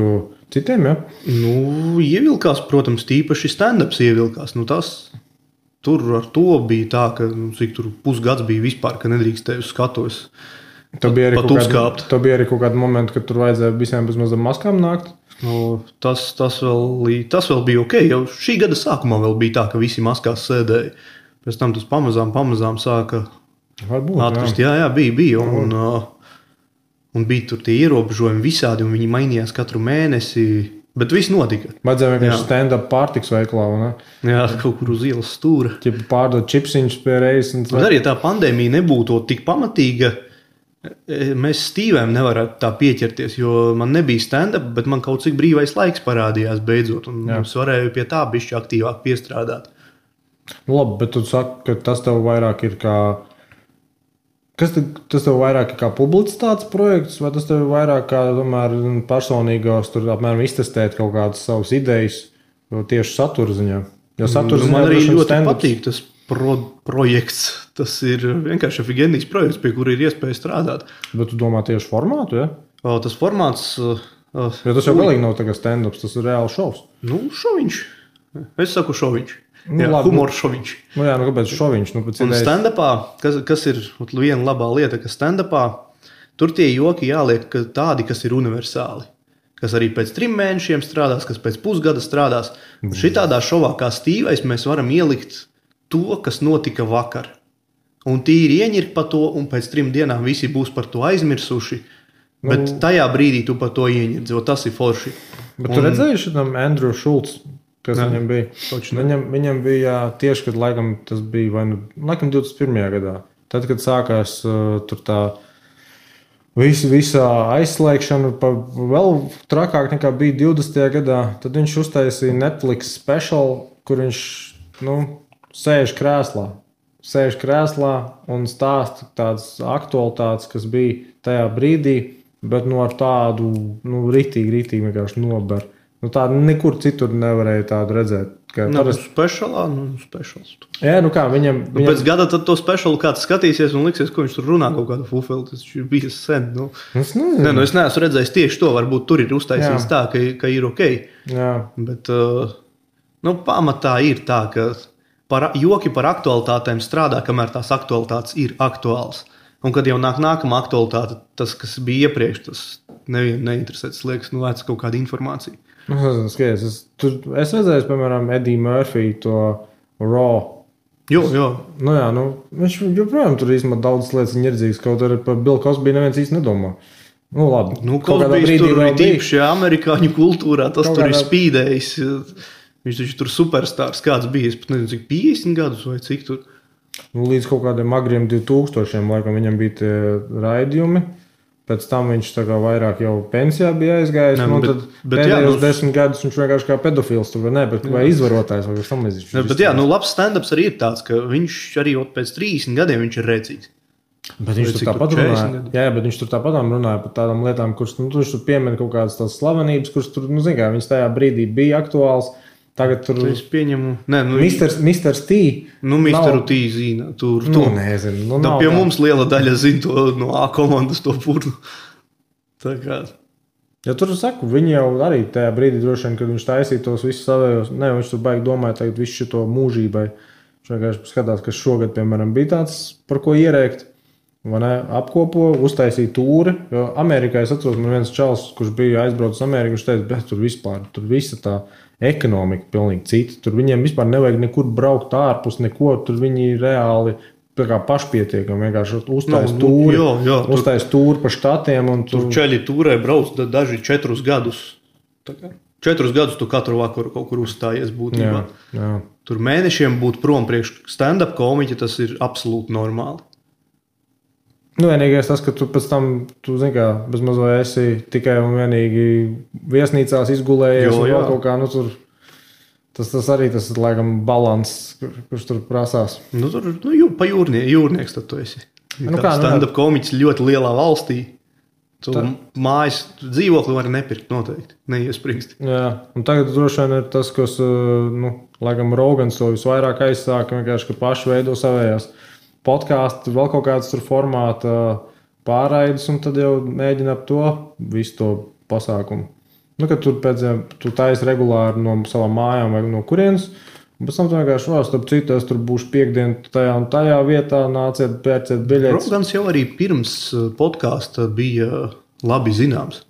S1: citiem, ja?
S2: Nu, ievilkās, protams, tīpaši stand-ups ievilkās. Nu, tur ar to bija tā, ka cik tur pusgads bija vispār, ka nedrīkstēju uz skatuves. Tev bija
S1: arī kaut kādi momenti, kad tur vajadzēja visiem bez mazām maskām nākt?
S2: Nu, tas vēl bija ok. Jau šī gada sākumā vēl bija tā, ka visi maskās sēdēja. Pēc tam tas pamazām sāka atkrist. Jā, bija. Un bija tur tie ierobežojumi visādi, un viņi mainījās katru mēnesi. Bet viss notika.
S1: Vajadzēja vienkārši stand-up pārtiks veiklā, ne?
S2: Jā, kaut kur uz ielas stūra.
S1: Pārdot čipsiņus pie reizes.
S2: Bet arī, ja tā pandēmija nebūtu tik pamatīga, mēs Stīvēm nevarētu tā pieķerties, jo man nebija stand-up, bet man kaut cik brīvais laiks parādījās beidzot, un es varēju pie tā bišķi aktīvāk piestrādāt.
S1: Labi, bet tu saki, ka tas tev vairāk ir kā... Tas tev vairāk ir kā publicitātes projekts, vai tas tev vairāk kā tomēr personīgos tur apmēram iztestēt kaut kādas savas idejas tieši satura ziņā? Jo satura ziņā
S2: man arī ļoti patīk tas projekts. Tas ir vienkārši efigēnīgs projekts, pie kura ir iespēja strādāt.
S1: Bet tu domā tieši formātu, ja?
S2: Tas formāts...
S1: Jo tas jau galīgi nav tagad stand-ups, tas ir reāls šovs.
S2: Nu, šoviņš. Es saku šoviņš. Jā, humors šoviņš.
S1: Kāpēc šoviņš?
S2: Un stand-upā, kas ir viena labā lieta, ka stand-upā tur tie joki jāliek tādi, kas ir universāli. Kas arī pēc 3 mēnešiem strādās, kas pēc pusgada strādās. Šitādā šovā kā Stīvais mēs varam ielikt to, kas notika vakar. Un tīri ieņirk pa to, un pēc 3 dienām visi būs par to aizmirsuši. Bet tajā brīdī tu par to ieņird, jo tas ir forši.
S1: Bet tu redzēji šitam Andrew Schultz? Kas viņam bija? Viņam bija tieši, kad laikam tas bija laikam 21. gadā. Tad, kad sākās tur tā visa aizslēgšana, vēl trakāk nekā bija 20. gadā, tad viņš uztaisīja Netflix special, kur viņš sēž krēslā un stāsta tādas aktualitātes, kas bija tajā brīdī, bet ar tādu ritīgi vienkārši nober. Tādu nekur citur nevarēja tādu redzēt.
S2: Specials.
S1: Jā, viņam...
S2: Pēc gada tad to specialu kāds skatīsies un liksies, ko viņš tur runā kaut kādu fufeli. Tas ir bijis sen. Es neesmu redzējis tieši to. Varbūt tur ir uztaisīts tā, ka ir ok.
S1: Jā.
S2: Bet pamatā ir tā, ka joki par aktualitātēm strādā, kamēr tās aktualitātes ir aktuāls. Un kad jau nāk nākamā aktualitāte, tas, kas bija iepriekš, tas nevienu neinteresē. Tas liekas, vēc kaut kāda informācija.
S1: Es redzēju, piemēram, Eddie Murphy to Raw.
S2: Jo.
S1: Viņš joprojām tur īstenībā daudz lietas ņerdzīgs, kaut arī par Bill Cosby neviens īsti nedomā. Labi.
S2: Cosbys tur ir tīpaši amerikāņu kultūrā, tas tur ir spīdējis. Viņš taču tur superstārs kāds bija, es pat nezinu, cik 50 gadus vai cik tur.
S1: Līdz kaut kādiem agriem 2000 laikam viņam bija tie raidījumi. Pēc tam viņš tā kā vairāk jau pensijā bija aizgājis. Tad pēdējos 10 gadus viņš vienkārši kā pedofils tur vai izvarotājs vai tam līdzīgs.
S2: Bet labs stand-ups arī ir tāds, ka viņš arī pēc 30 gadiem viņš ir redzīgs.
S1: Bet viņš tur tāpat runāja. Jā, bet viņš tur tāpat runāja par tādām lietām, kuras viņš tur piemina kaut kādas tās slavenības, kuras tur, viņas tajā brīdī bija aktuāls. Tagad tur
S2: es pieņemu.
S1: Mr. T.
S2: Mr. T zina. Tur.
S1: Nezinu.
S2: Pie mums liela daļa zina to no A komandas to purnu. Tā kā.
S1: Ja tur saku, viņi jau arī tajā brīdī droši vien, kad viņš taisīja tos visus savējos, viņš tur baigi domāja tagad visu šito mūžībai. Viņš vienkārši skatās, kas šogad, piemēram, bija tāds, par ko ierēkt. Apkopo, uztaisīja tūri. Jo Amerikā es atceros, man viens čals, kurš bija aizbraucis Ameriku, viņš teica, bet tur visa tā ekonomika pilnīgi cita. Tur viņiem vispār nevajag nekur braukt ārpus, neko. Tur viņi reāli pašpietiekami vienkārši uztais tūri pa štatiem.
S2: Tur čeļi tūrē brauc daži 4 gadus. 4 gadus tu katru vakaru kaut kur uzstājies būtībā.
S1: Jā.
S2: Tur mēnešiem būt prom priekš stand-up komiķi, tas ir absolūti normāli.
S1: Vienīgais tas, ka tu pēc tam, zini kā, bez mazo esi tikai un vienīgi viesnīcās izgulējies un vēl kaut kā, tur, tas arī tas ir, laikam, balans, kurš tur prasās.
S2: Tur, pa jūrnieks tad tu esi. Stand-up komiķis ļoti lielā valstī, Tu mājas dzīvokli var nepirkt noteikti, neiespringst.
S1: Jā, un tagad droši vien ir tas, kas, laikam, Rogans to visvairāk aizsāka, vienkārši, ka paši veido savējās podkāstu, vēl kaut kādas tur formāta pārraides, un tad jau mēģina ap to visu to pasākumu. Nu, kad tu taisi regulāri no savām mājām vai no kurienes, un pēc tam tu vienkārši starp citu, es tur būšu piekdien tajā un tajā vietā, nāciet, pērciet biļetes.
S2: Rogans jau arī pirms podkāsta bija labi zināms.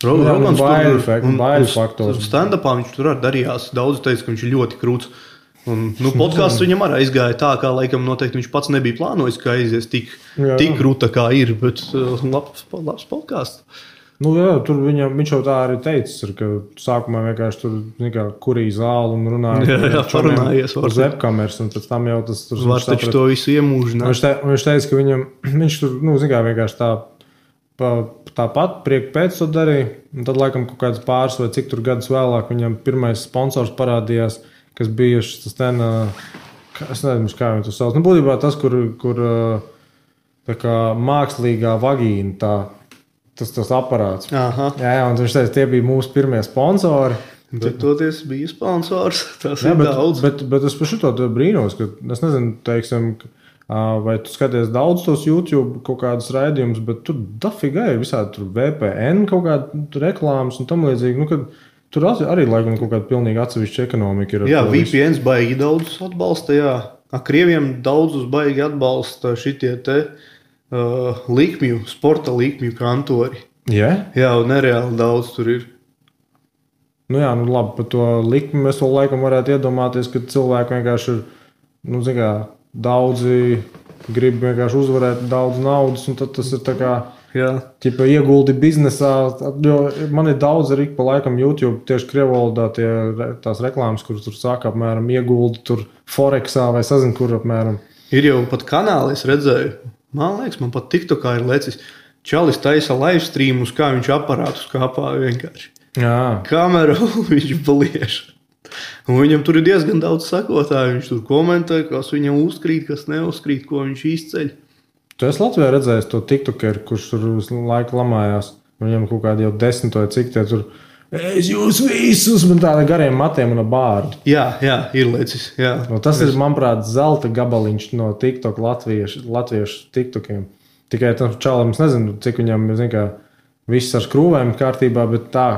S1: Rogans baiļu faktors.
S2: Stand-upā viņš tur arī darījās. Daudz teica, ka viņš ir ļoti krūts. Un, podkāsts viņam arī aizgāja tā, kā laikam noteikti viņš pats nebija plānojis, ka aizies tik krūta kā ir, bet labs podkāsts.
S1: Nu, jā, tur viņš jau tā arī teicis, ka sākumā vienkārši tur kurīja zāli un runāja
S2: parunājies
S1: uz webkameras, un pēc tam jau tas tur...
S2: Var taču to visu iemūžināt.
S1: Viņš teica, ka viņš tur, vienkārši tāpat priek pēc to darīja, un tad laikam kaut kāds pāris vai cik tur gadus vēlāk viņam pirmais sponsors parādījās, kas bija tas ten, es nezinu, kā viņu to sauc. Nu, būtībā tas, kur tā kā mākslīgā vagīna tas aparāts.
S2: Aha.
S1: Jā, un viņš teica, tie bija mūsu pirmie sponsori.
S2: Bet toties bija sponsors, tas ir daudz.
S1: Bet es par šito brīnos, ka es nezinu, teiksim, vai tu skaties daudz tos YouTube kaut kādus raidījumus, bet tur dafiga ir visādi tur VPN kaut kāda reklāmas un tam līdzīgi, nu, kad tur arī laikam kaut kāda pilnīgi atsevišķa ekonomika ir.
S2: Jā, VPNs baigi daudzus atbalsta, jā. Krieviem daudzus baigi atbalsta šitie te likmju, sporta likmju kantori.
S1: Yeah?
S2: Jā, un nereāli daudz tur ir.
S1: Nu jā, nu labi, par to likmi mēs vēl laikam varētu iedomāties, ka cilvēki vienkārši ir, daudzi grib vienkārši uzvarēt daudz naudas, un tad tas ir tā kā, ķipa ieguldi biznesā, jo man ir daudz arī pa laikam YouTube tieši krievvalodā tās reklāmas, kuras tur saka apmēram ieguldi tur Forexā vai sazin, kur apmēram.
S2: Ir jau pat kanāli, es redzēju. Man liekas, man pat TikTokā ir lecis. Čalis taisa live streamus, kā viņš aparātus kāpā vienkārši.
S1: Jā.
S2: Kameru viņš paliež. Un viņam tur ir diezgan daudz sakotāju. Viņš tur komentē, kas viņam uzkrīt, kas neuzkrīt, ko viņš izceļ.
S1: Tu esi Latvijā redzējis to TikTokeru, kurš tur visu laiku lamājās. Viņam kaut kādi jau 10 vai cik tie tur... Es jūs visus, man tāda gariem matiem un bārdu.
S2: Jā, ir lecis. Jā.
S1: No, tas ir, manuprāt, zelta gabaliņš no TikTok latviešu TikTokiem. Tikai tam čalam, es nezinu, cik viņam, viss ar skrūvēm kārtībā, bet tā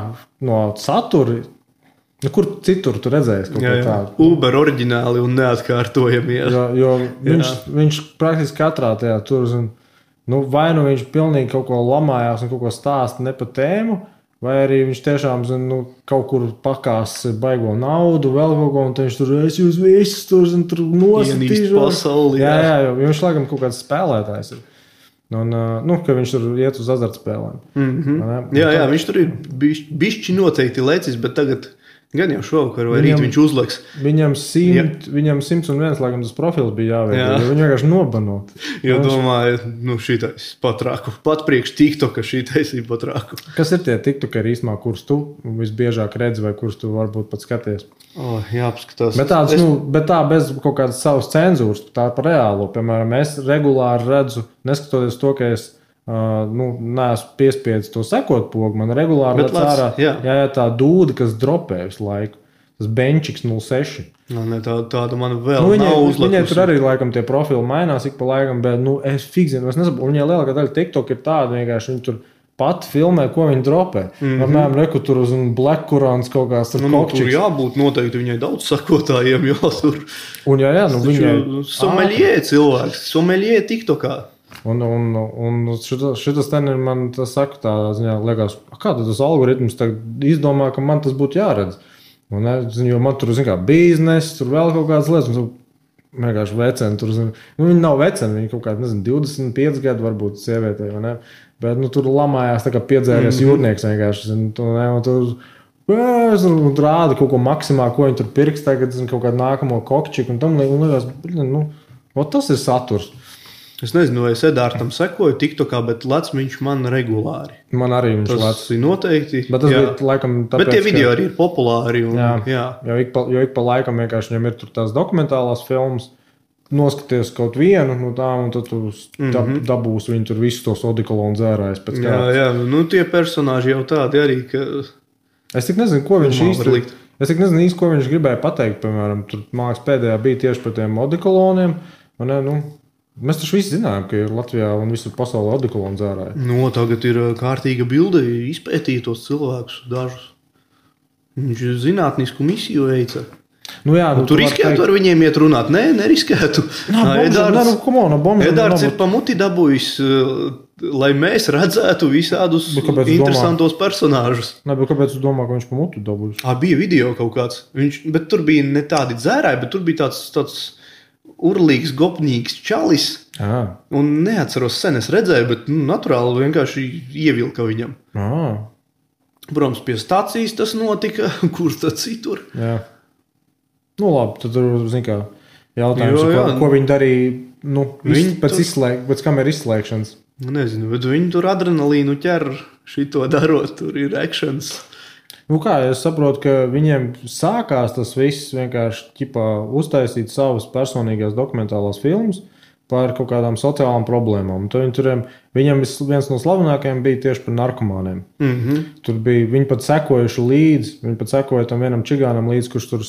S1: no satura, kur citur tu redzējies kaut ko tādu?
S2: Uber oriģināli un neatkārtojami.
S1: Jo viņš praktiski katrā tajā tur, vai nu viņš pilnīgi kaut ko lamājās un kaut ko stāsta ne pa tēmu, vai arī viņš tiešām kaut kur pakās baigo naudu, vēl kaut ko, un viņš tur, es jūs visus tur nosītīšu.
S2: Pasauli.
S1: Jā, jo viņš laikam kaut kāds spēlētājs ir. Un, ka viņš tur iet uz azartspēlēm.
S2: Mm-hmm. Jā, viņš tur ir bišķi noteikti lecis, bet tagad gan jau šovakar vai rīt viņš uzliks.
S1: Viņam 101, laikam tas profils bija jāveido, jo viņi vienkārši nobano.
S2: Jo domāju, šitais patrāku. Pat priekš TikToka šitais ir patrāku.
S1: Kas ir tie TikTokeri īstumā, kurus tu visbiežāk redzi vai kurus tu varbūt pat skaties?
S2: Jāpaskatās.
S1: Bet tā bez kaut kādas savas cenzūras, tā par reālo. Piemēram, es regulāri redzu, neskatoties to, ka es neesmu piespiedis to sekot pogu, man regulāri lec ārā tā dūda, kas dropē visu laiku. Tas benčiks 06.
S2: Tāda man vēl nav uzlikusi.
S1: Viņai tur arī laikam tie profili mainās ik pa laikam, bet es fikzinu, es nesaprotu. Viņai lielākā daļa TikTok ir tāda vienkārši, viņi tur pat filmē, ko viņi dropē. Apmēram reku tur uz Black Kurāns kaut kāds tur kokčiks.
S2: Tur jābūt noteikti viņai daudz sakotājiem, jo tur...
S1: Un viņai...
S2: Someļie cilvēks, someļie TikTokā.
S1: Un šitas ten ir man tas saka tā ziņā, liekas, kā tas algoritms izdomā, ka man tas būtu jāredz. Un, jo man tur, biznes, tur vēl kaut kādas lietas, un vienkārši veceni tur, viņi nav veceni, viņi kaut kādi, 25 gadu varbūt sievietei, vai ne? Bet, tur lamājās tā kā piedzēries jūrnieks vienkārši, un tur rāda kaut ko maksimā, ko viņi tur pirks tagad, kaut kādu nākamo kokčiku, un tam liekas, tas ir saturs.
S2: Es nezinu, vai es Edārtam sekoju TikTokā, bet lec viņš man regulāri.
S1: Man arī viņš lec.
S2: Tas ir noteikti.
S1: Bet tas bija laikam tāpēc,
S2: bet tie video arī ir populāri. Un,
S1: jo ik pa laikam vienkārši viņam ir tur tās dokumentālās filmas. noskaties kaut vienu no tām, un tad tu dabūsi viņu tur visus tos odikolonu dzērājus pēc kārtas.
S2: Jā, nu tie personāži jau tādi arī, ka...
S1: Es tik nezinu, ko viņš īsti, ko viņš gribēja pateikt, piemēram, tur māks pēdējā bija tieši par tiem odikoloniem, un nu, mēs taču visi zinājām, ka ir Latvijā un visur pasaulē odikolonu dzērāji.
S2: No, tagad ir kārtīga bilde, izpētīt tos cilvēkus dažus. Viņš zinātnisku misiju veica.
S1: Nu jā,
S2: tu riskētu ar viņiem iet runāt? Nē, neriskētu. Edārds ir pa muti dabūjis, lai mēs redzētu visādus interesantos personāžus.
S1: Nē, bet kāpēc tu domā, ka viņš pa muti dabūjis?
S2: Bija video kaut kāds. Bet tur bija ne tādi dzērāji, bet tur bija tāds urlīgs, gopņīgs čalis. Un neatceros sen, es redzēju, bet naturāli vienkārši ievilka viņam. Protams, pie stācijas tas notika, kur tad citur.
S1: Jā. Nu labi, tad tur, zin kā, jautājums, ko viņi darīja, pēc kameras izslēgšanas.
S2: Nezinu, bet viņi tur adrenalīnu ķer šito darot, tur ir actions.
S1: Nu kā, es saprotu, ka viņiem sākās tas viss vienkārši uztaisīt savas personīgās dokumentālās filmas par kaut kādām sociālām problēmām. Viņam viens no slavenākajiem bija tieši par narkomāniem. Tur bija, viņi pat sekojuši līdzi, viņi pat sekoja tam vienam čigānam līdzi, kurš tur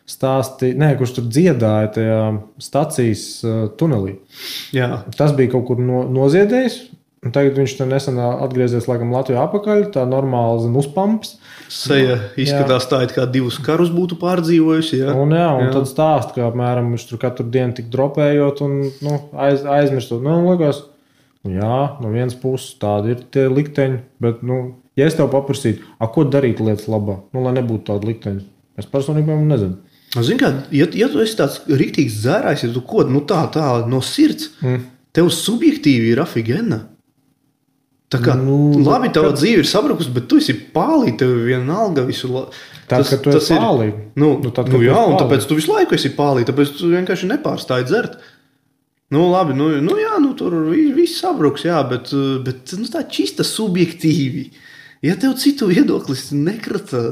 S1: kurš tur dziedāja tajā stacijas tunelī.
S2: Jā.
S1: Tas bija kaut kur noziedējis. Un tagad viņš nesen atgriezies laikam Latvijā apakaļ, tā normāli uzpamps.
S2: Seja izskatās tā, it kā 2 karus būtu pārdzīvojusi. Jā.
S1: Un tad stāst, ka apmēram viņš tur katru dienu tik dropējot un aizmirstot. Liekas, no vienas puses tādi ir tie likteņi, bet, ja es tev paprasītu, ko darīt lietas labā, lai nebūtu tādi likteņi, es personīgi nezinu.
S2: Zini kā, ja tu esi tāds riktīgs dzērājs, ja tu kod, tā no sirds, tev subjektīvi ir afigena. Tā kā, labi, tava dzīve ir sabrukus, bet tu esi pālī, tev vienalga visu
S1: Tad, kad tu esi pālī.
S2: Un tāpēc tu visu laiku esi pālī, tāpēc tu vienkārši nepārstāji dzert. Labi, tur viss sabruks, jā, bet tā čista subjektīvi. Ja tev citu viedoklis nekrata,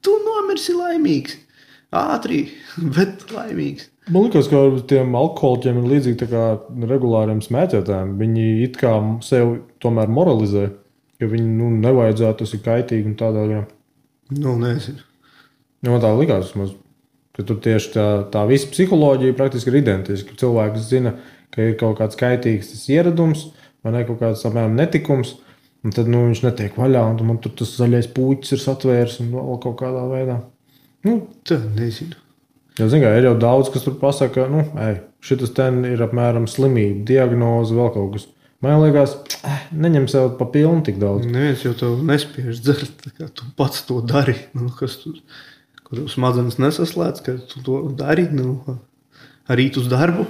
S2: tu nomirsi laimīgs. Ātri, bet laimīgs.
S1: Man liekas, ka tiem alkoholiķiem ir līdzīgi tā kā regulāriem smēķētājiem. Viņi it kā sev tomēr moralizē, ka viņi nevajadzētu, tas ir kaitīgi un tādā jā.
S2: Nezinu.
S1: Man tā likās, ka tur tieši tā visa psiholoģija praktiski ir identiska. Cilvēks zina, ka ir kaut kāds kaitīgs tas ieradums vai ne kaut kāds apmēram netikums, un tad viņš netiek vaļā, un man tur tas zaļais puķis ir satvērs un vēl kaut kādā veidā.
S2: Tā nezinu.
S1: Ir jau daudz, kas tur pasaka, šitas ten ir apmēram slimība, diagnoze, vēl kaut kas. Man liekas, neņem sev pa pilnu tik daudz.
S2: Neviens jau tev nespiež dzert, kā tu pats to dari. Kas tur, kur smadzenes nesaslēdz, ka tu to dari, arī uz darbu.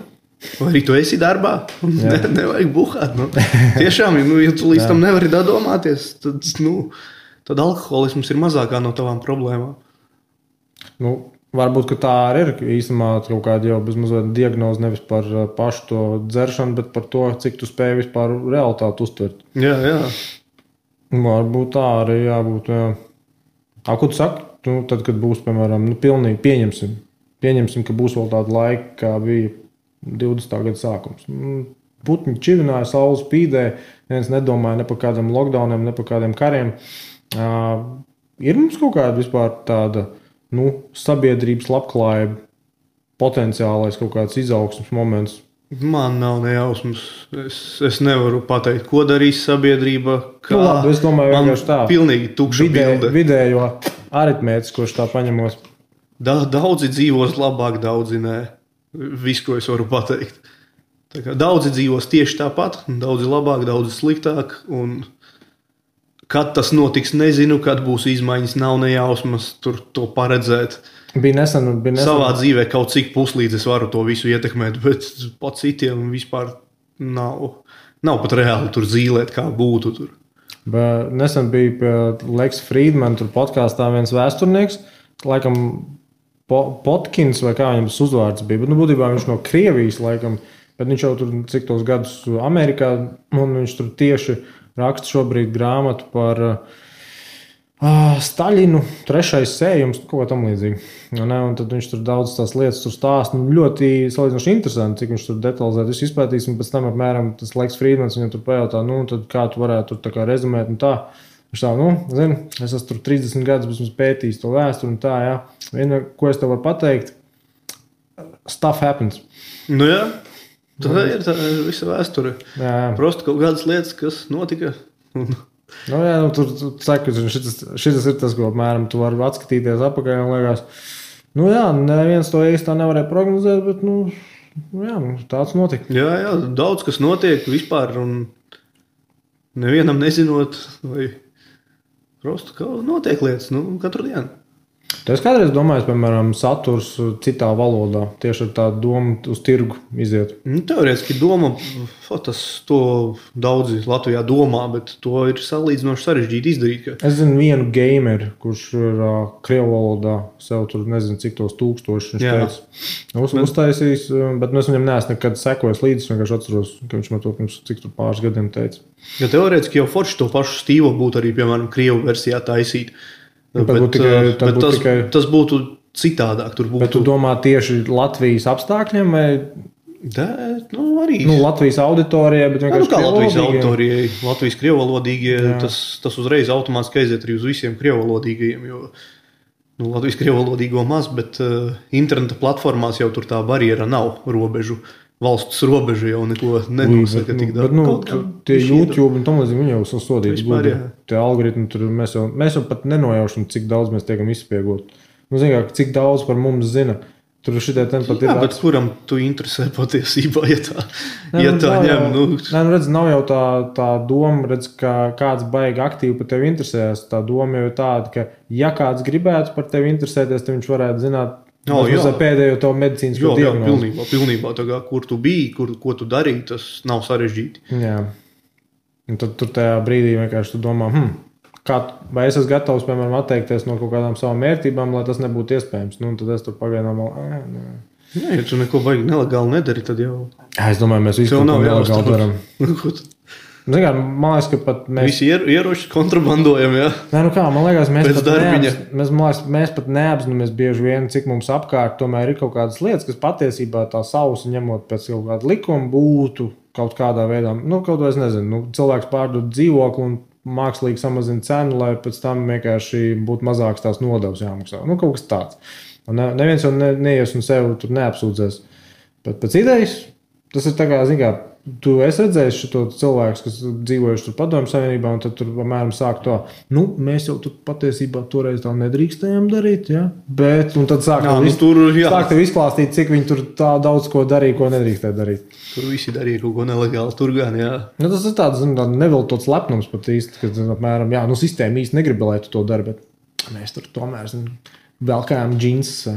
S2: Vai arī tu esi darbā, nevajag buhāt. Tiešām, ja tu līdz tam nevari domāties, tad alkoholisms ir mazākā no tavām problēmām.
S1: Varbūt, ka tā arī ir īstenībā kaut kāda jau bezmazliet diagnoze nevis par pašu to dzeršanu, bet par to, cik tu spēj vispār realitāti uztvert.
S2: Jā.
S1: Varbūt tā arī jābūt, jā. Ko tu saki? Tad, kad būs, piemēram, pilnīgi pieņemsim, ka būs vēl tāda laika, kā bija 20. gada sākums. Putņi čivināja, saules spīdēja, neviens nedomāja ne par kādiem lockdowniem, ne par kādiem kariem. Ir mums kaut kāda vispār tāda sabiedrības labklājība, potenciālais kaut kāds izaugsmes moments?
S2: Man nav nejausmas. Es nevaru pateikt, ko darīs sabiedrība.
S1: Labi, es domāju, vienkārši tā.
S2: Pilnīgi tukša bilde.
S1: Vidējo aritmētiskos tā paņemos.
S2: Daudzi dzīvos labāk, daudzi nē. Viss, ko es varu pateikt. Tā kā daudzi dzīvos tieši tāpat, daudzi labāk, daudzi sliktāk, un kad tas notiks, nezinu, kad būs izmaiņas, nav nejausmas tur to paredzēt.
S1: Bija nesen.
S2: Savā dzīvē kaut cik puslīdz es varu to visu ietekmēt, bet pat citiem vispār nav pat reāli tur zīlēt, kā būtu tur.
S1: Bet nesen bija pie Leks Friedman tur podkāstā viens vēsturnieks, laikam Potkins vai kā viņam tas uzvārds bija, bet būtībā viņš no Krievijas laikam, bet viņš jau tur cik tos gadus Amerikā, un viņš tur tieši raksta šobrīd grāmatu par Staļinu trešais sējums, kaut kā tam līdzīgi. Un tad viņš tur daudz tās lietas tur stāsta. Ļoti salīdzinoši interesanti, cik viņš tur detalizēti visu izpētīs. Un pēc tam apmēram tas Leiks Frīdmans viņam tur pajautā, tad kā tu varētu tur tā kā rezumēt un tā. Viņš tā, zini, es esmu tur 30 gadus, esmu pētījis to vēsturi un tā, jā. Viena, ko es tev varu pateikt, stuff happens.
S2: Nu jā, tā ir visa vēsture. Jā. Prosti kaut kādas lietas, kas notika.
S1: Tur saka, šis ir tas, ko apmēram tu vari atskatīties apakaļ un liekas, neviens to īsti tā nevarēja prognozēt, bet, tāds notika.
S2: Jā, daudz kas notiek vispār un nevienam nezinot, vai prosti, kā notiek lietas, katru dienu.
S1: Tu esi kādreiz domājis, piemēram, saturs citā valodā, tieši ar tādu domu uz tirgu iziet?
S2: Teorētiski doma, to daudzi Latvijā domā, bet to ir salīdzinoši sarežģīti izdarīt.
S1: Es zinu vienu gameru, kurš ir krievu valodā, sev tur nezinu cik tos tūkstoši viņš teica. Uztaisījis, bet es viņam neesmu nekad sekojis līdzi, vienkārši atceros, ka viņš man to pirms cik tur pāris gadiem teica.
S2: Ja teorētiski jau forši to pašu stīvu būtu arī, piemēram, krievu versijā taisīt. Tas būtu citādāk.
S1: Bet tu domā tieši Latvijas apstākļiem vai?
S2: Arī.
S1: Latvijas auditorijai, bet vienkārši
S2: kā Latvijas auditorijai, Latvijas krievalodīgie, tas uzreiz automātiski aiziet arī uz visiem krievalodīgajiem, jo Latvijas krievalodīgo maz, bet interneta platformās jau tur tā barjera nav robežu. Valsts robeža jau neko nenosaka tik daudz.
S1: Tie YouTube un tam līdzīgi viņi jau sasodīti. Tie algoritmi tur mēs jau pat nenojaušam, cik daudz mēs tiekam izspiegot. Cik daudz par mums zina. Tur šitie ten pat ir.
S2: Jā, bet kuram tu interesē patiesībā, ja tā ņem?
S1: Redz, nav jau tā doma, redz, ka kāds baigi aktīvi par tevi interesēs. Tā doma jau ir tāda, ka ja kāds gribētu par tevi interesēties, tad viņš varētu zināt, pēdējo to medicīnisko diagnozi.
S2: Pilnībā tā kā, kur tu biji, ko tu darīji, tas nav sarežģīti.
S1: Jā. Un tad tur tajā brīdī vienkārši tu domā, vai es esmu gatavs, piemēram, atteikties no kaut kādām savām mērtībām, lai tas nebūtu iespējams. Tad es tur pagaidām
S2: ja tu neko baigi nelegāli nedari, tad jau...
S1: Es domāju, mēs visu kaut ko nelegāli daram. Man liekas, ka pat mēs...
S2: Visi ieroči kontrabandojam, jā?
S1: Man liekas, mēs pat neapzināmies bieži vien, cik mums apkārt tomēr ir kaut kādas lietas, kas patiesībā tā sausi ņemot pēc kaut kāda likuma būtu kaut kādā veidā. Kaut vai es nezinu, cilvēks pārdod dzīvokli un mākslīgi samazina cenu, lai pēc tam vienkārši būtu mazāks tās nodevs jāmaksā. Kaut kas tāds. Un neviens jau neies un sev tur neapsūdzēs. Bet pēc idejas, tas ir tā kā, tu esi redzējis šo cilvēku, kas dzīvojuši tur Padomju Savienībā, un tad tur apmēram sāk to, mēs jau tur patiesībā toreiz tā nedrīkstējām darīt, ja? Bet, un tad sāk tev izklāstīt, cik viņi tur tā daudz ko darīja, ko nedrīkstēja darīt.
S2: Tur visi darīja kaut ko nelegāli, tur gan, jā.
S1: Tas ir tāds neviltots lepnums pat īsti, kad apmēram, sistēma īsti negrib, lai tu to dari, bet mēs tur tomēr velkājām džinsus.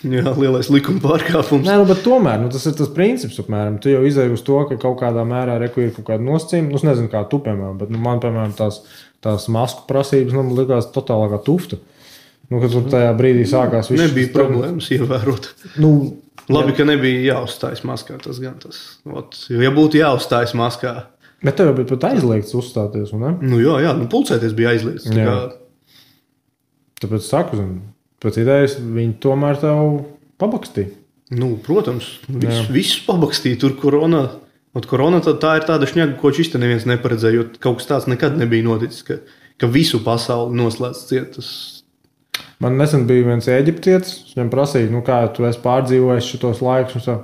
S2: Jā, lielais likuma pārkāpums.
S1: Bet tomēr, tas ir tas princips, apmēram. Tu jau izēji uz to, ka kaut kādā mērā ir kaut kāda nosacījuma. Es nezinu, kā tu, piemēram, bet man, piemēram, tās masku prasības likās totālākā tufta. Kad tur tajā brīdī sākās viss.
S2: Nebija problēmas ievērot. Labi, ka nebija jāuzstājas maskā, tas gan tas. Ja būtu jāuzstājas maskā.
S1: Bet tev bija pat aizliegts uzstāties, un ne?
S2: Jā, pulcēties bija aizliegts.
S1: Tāpēc saku, pēc idejas viņi tomēr tev pabakstīja.
S2: Protams, visus pabakstīja. Tur korona, tā ir tāda šņaga, ko šis te neviens neparedzēja, jo kaut kas tāds nekad nebija noticis, ka visu pasauli noslēdz ciet.
S1: Man nesen bija viens eģiptietis, viņam prasīja, kā tu esi pārdzīvojis šitos laikus, un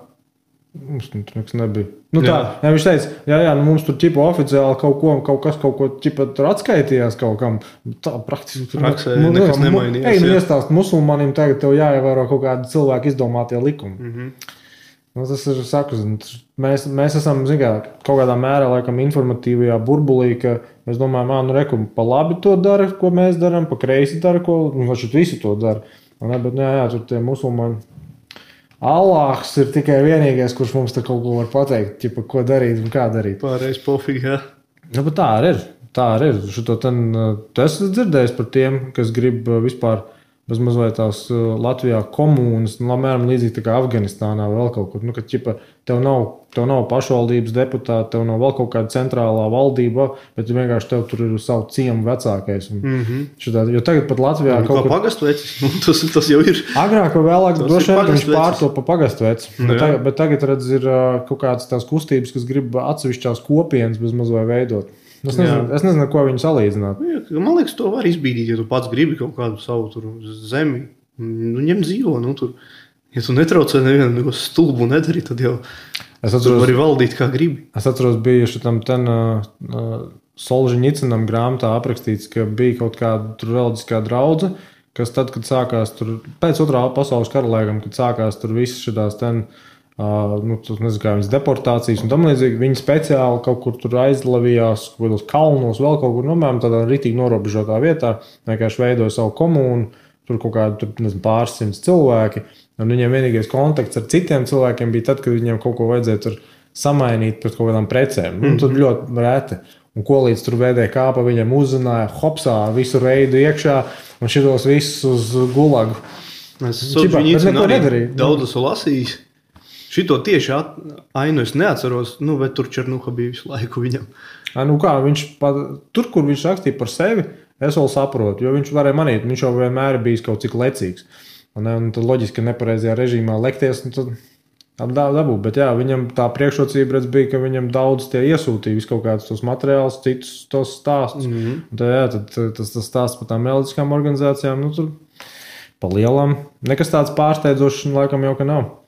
S1: mums tur nekas nebija. Viņš teica, mums tur ķipa oficiāli kaut ko ķipa tur atskaitījās kaut kam. Tā praktiski
S2: praksē nekas nemainījās.
S1: Iestāst musulmanim, tagad tev jāievēro kaut kādi cilvēki izdomātie likumi. Tas ir saku, mēs esam, kaut kādā mērā laikam informatīvajā burbulī, ka mēs domājam, pa labi to dara, ko mēs daram, pa kreisi dara, ko, visi to dara. Bet tur tie musulmaņi. Allāhs ir tikai vienīgais, kurš mums te kaut ko var pateikt, ķipa, ko darīt un kā darīt.
S2: Pārējais pofīgi, jā.
S1: Bet tā arī ir. Tu esi dzirdējis par tiem, kas grib vispār mazliet tās Latvijā komūnas, apmēram līdzīgi tā kā Afganistānā vai vēl kaut kur. Nu, ka, ķipa, tev nav pašvaldības deputāti, tev nav vēl kaut kāda centrālā valdība, bet vienkārši tev tur ir savu ciemu vecākais. Šitā, jo tagad pat Latvijā
S2: kaut kā pagastu vecis, tas jau ir.
S1: Agrāk vai vēlāk droši vien viņš pārto pa pagastu veci. Bet tagad, redz, ir kaut kādas tās kustības, kas grib atsevišķās kopienas bez mazliet veidot. Es nezinu, ko viņu salīdzināt.
S2: Man liekas, to var izbīdīt, ja tu pats gribi kaut kādu savu zemi. Ņem dzīvo, tur. Ja tu netraucē nevienu stulbu nedari, tad jau tu vari valdīt kā gribi.
S1: Es atceros, bija šitam Solženicinam grāmatā aprakstīts, ka bija kaut kāda reliģiskā draudze, kas tad, kad sākās tur, pēc otrā pasaules kara laikam, kad sākās tur visas šitās nezinu, kā viņas deportācijas un tam līdzīgi, viņi speciāli kaut kur tur aizlavījās, kaut kādos kalnos, vēl kaut kur, tādā ritīgi norobežotā vietā, vienkārši veidoja savu komūnu, tur kaut kādi, pāris simts cilvēki, un viņiem vienīgais kontakts ar citiem cilvēkiem bija tad, kad viņiem kaut ko vajadzēja tur samainīt pret kaut kādām precēm. Tur ļoti reti. Un ko līdz tur vēdēja kāpa, viņam uzzināja, hopsā, visu reidu iekšā, un šitos visus uz gulagu.
S2: Es daudz esmu lasījis. Šito tieši ainu es neatceros, bet tur Černuha bija visu laiku viņam.
S1: Tur, kur viņš rakstīja par sevi, es vēl saprotu, jo viņš varēja manīt, viņš jau vienmēr bijis kaut cik lecīgs. Un tad loģiski, ka nepareizajā režīmā lekties, tad dabū. Bet jā, viņam tā priekšrocība redz bija, ka viņam daudz tie iesūtīja visu kaut kādus tos materiālus, citus tos stāstus. Tad tas stāsts par tām reliģiskām organizācijām, tur pa lielam. Nekas tāds pārsteidzošs laikam jau ka nav.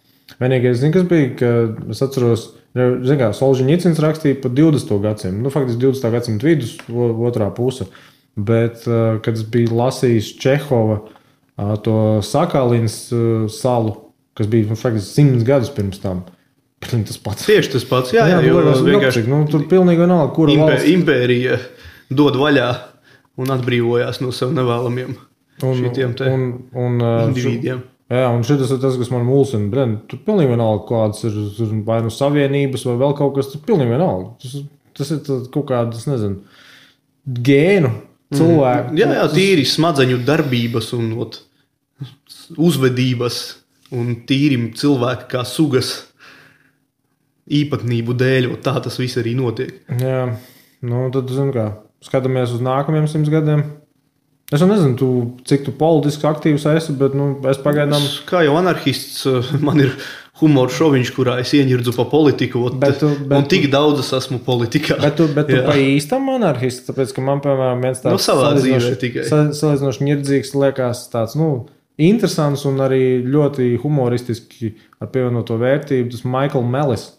S1: Vienīgais, kas bija, ka es atceros, Solženicins rakstīja par 20. gadsimtu, faktiski 20. gadsimtu vidus, otrā puse, bet, kad es biju lasījis Čehova to Sakalins salu, kas bija, faktiski 100 gadus pirms tam, tas pats.
S2: Tieši tas pats, jā,
S1: vienkārši. Tur pilnīgi vienalga, kura valsts.
S2: Impērija dod vaļā un atbrīvojās no sev nevēlamiem šitiem te individiem.
S1: Jā, un šis ir tas, kas man mulsina. Tur pilnīgi vienalga, kādas ir vai nu savienības, vai vēl kaut kas, tur pilnīgi vienalga. Tas ir kaut kādas, nezinu, gēnu cilvēku.
S2: Jā, tīri smadzeņu darbības un uzvedības un tīri cilvēki kā sugas īpatnību dēļ, tā tas viss arī notiek.
S1: Jā, tad, skatāmies uz nākamajiem 100 gadiem. Es nezinu, cik tu politiski aktīvs esi, bet es pagaidām...
S2: Kā jau anarhists, man ir humora šoviņš, kurā es ieņirdzu pa politiku, un tik daudz es esmu politikā.
S1: Bet tu pa īstam anarhists, tāpēc, ka man, piemēram, viens tāds salīdzinoši ņirdzīgs liekas tāds, interesants un arī ļoti humoristiski ar pievienoto vērtību, tas Michael Mellis.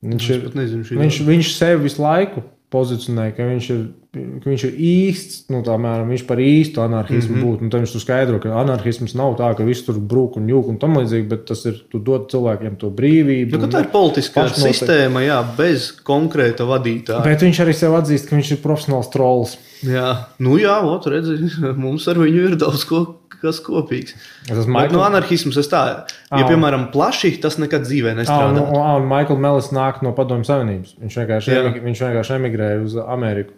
S1: Viņš sevi visu laiku pozicionē, ka viņš ir īsts, viņš par īstu anarhismu būtu. Tad viņš tur skaidro, ka anarhisms nav tā, ka viss tur brūk un jūk un tam līdzīgi, bet tas ir, tu dod cilvēkiem to brīvību.
S2: Tā ir politiskā sistēma, bez konkrēta vadītāja.
S1: Bet viņš arī sev atzīst, ka viņš ir profesionāls trolls.
S2: Jā, redzi, mums ar viņu ir daudz kas kopīgs. Bet anarhisms piemēram, plaši, tas nekad dzīvē nestrādā.
S1: Un Michael Mellis nāk no Padomju Savienības. Viņš vienkārši emigrēja uz Ameriku.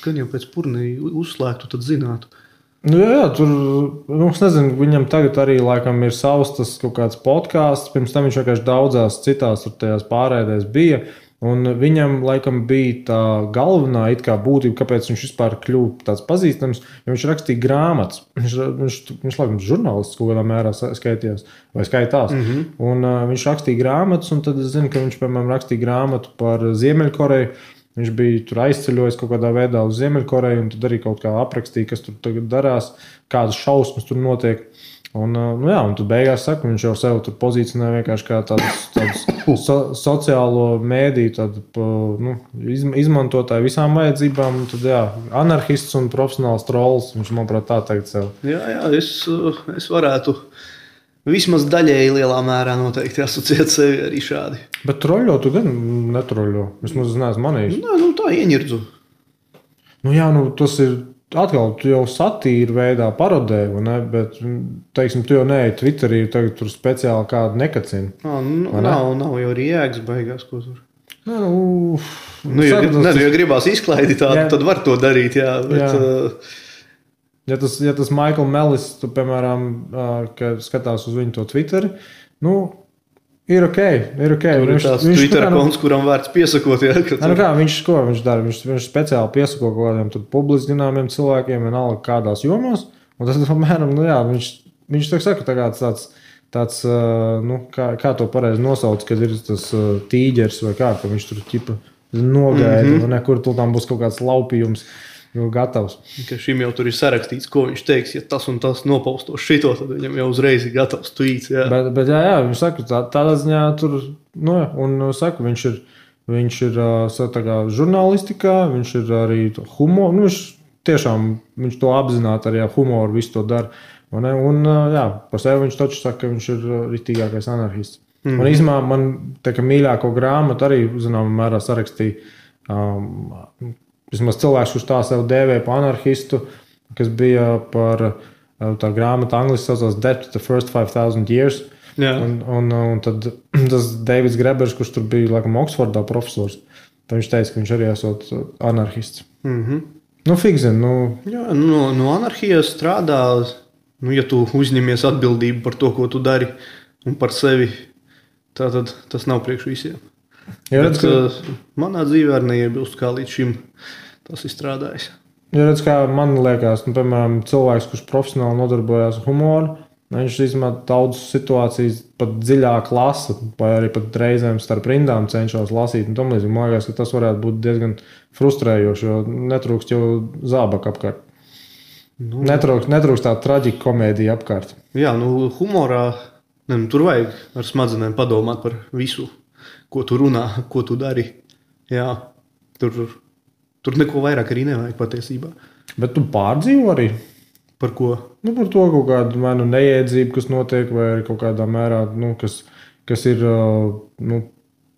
S2: Gan jau pēc purnī uzslēgtu, tad zinātu.
S1: Tur, es nezinu, viņam tagad arī laikam ir savs tas kaut kāds podcasts, pirms tam viņš vienkārši daudzās citās tajās pārēdēs bija. Un viņam laikam bija tā galvenā būtība, kāpēc viņš vispār kļuva tāds pazīstams, jo viņš rakstīja grāmatas. Viņš laikam žurnālists kaut kādā mērā skaitījās vai skaitās. Un viņš rakstīja grāmatas, un tad es zinu, ka viņš, piemēram, rakstīja grāmatu par Ziemeļkoreju. Viņš bija tur aizceļojis kaut kādā veidā uz Ziemeļkoreju, un tad arī kaut kā aprakstīja, kas tur tagad darās, kādas šausmas tur notiek. Un tad beigās saka, viņš jau sev tur pozicionē vienkārši kā tādus sociālo mēdīju izmantotāju visām vajadzībām. Un tad, anarhists un profesionāls trolls, viņš, manuprāt, tā tagad sev.
S2: Jā, es varētu vismaz daļēji lielā mērā noteikti asociēt sevi arī šādi.
S1: Bet troļļo tu gan netroļļo. Vismaz neesmu manījis.
S2: Tā ieņirdzu.
S1: Tas ir... Atkal, tu jau satīri veidā parodē, bet, teiksim, tu jau neej Twitterī, tagad tur speciāli kādu nekacina.
S2: Nav jau arī jēgas beigās, ko tur. Ja gribās izklaidi tādu, tad var to darīt, jā. Bet,
S1: Ja tas Michael Mellis, tu, piemēram, kad skatās uz viņu to Twitteri, ir ok.
S2: Tur ir tās Twitter konts, kuram vērts piesakot. Ja,
S1: viņš dara? Viņš speciāli piesako kaut kādiem publiski zināmiem cilvēkiem, vienalga kādās jomās. Un tas, apmēram, viņš saka, tāds kā to pareizi nosauc, kad ir tas tīģers vai kā, ka viņš tur ķipa nogaida, un nekur tur tam būs kaut kāds laupījums. Gatavs.
S2: Ka šim jau tur ir sarakstīts, ko viņš teiks, ja tas un tas nopaustos šito, tad viņam jau uzreiz ir gatavs tweets. Jā.
S1: Bet viņš saka, tādā ziņā tur, un saka, viņš ir tā kā žurnālistikā, viņš ir arī humor, viņš to apzināti arī humoru visu to dara. Un par sevi viņš taču saka, ka viņš ir ritīgākais anarhists. Un īstenībā man tā kā mīļāko grāmatu arī, zināmā mērā, sarakstīja vismaz cilvēks, kurš tā sev dēvē par anarhistu, kas bija par tā grāmata angliski saucās Death to the First 5,000 Years. Un tad tas Davids Grebers, kurš tur bija laikam Oksfordā profesors, tad viņš teica, ka viņš arī esot anarhists. Figzin,
S2: Jā, no anarhijas strādā, ja tu uzņemies atbildību par to, ko tu dari un par sevi, tad tas nav priekš visiem. Bet manā dzīvē arī neiebilst, kā līdz šim tas ir strādājis.
S1: Redz, kā man liekas, piemēram, cilvēks, kurš profesionāli nodarbojās ar humoru, viņš izmanto daudzas situācijas pat dziļāk lasa, vai arī pat reizēm starp rindām cenšas lasīt. Man liekas, ka tas varētu būt diezgan frustrējoši, jo netrūkst jau zābaka apkārt. Netrūkst tā traģika komēdija apkārt.
S2: Jā, humorā tur vajag ar smadzenēm padomāt par visu, ko tu runā, ko tu dari. Jā, tur neko vairāk arī nevajag patiesībā.
S1: Bet tu pārdzīvo arī?
S2: Par ko?
S1: Par to kaut kādu neiedzību, kas notiek, vai arī kaut kādā mērā, kas ir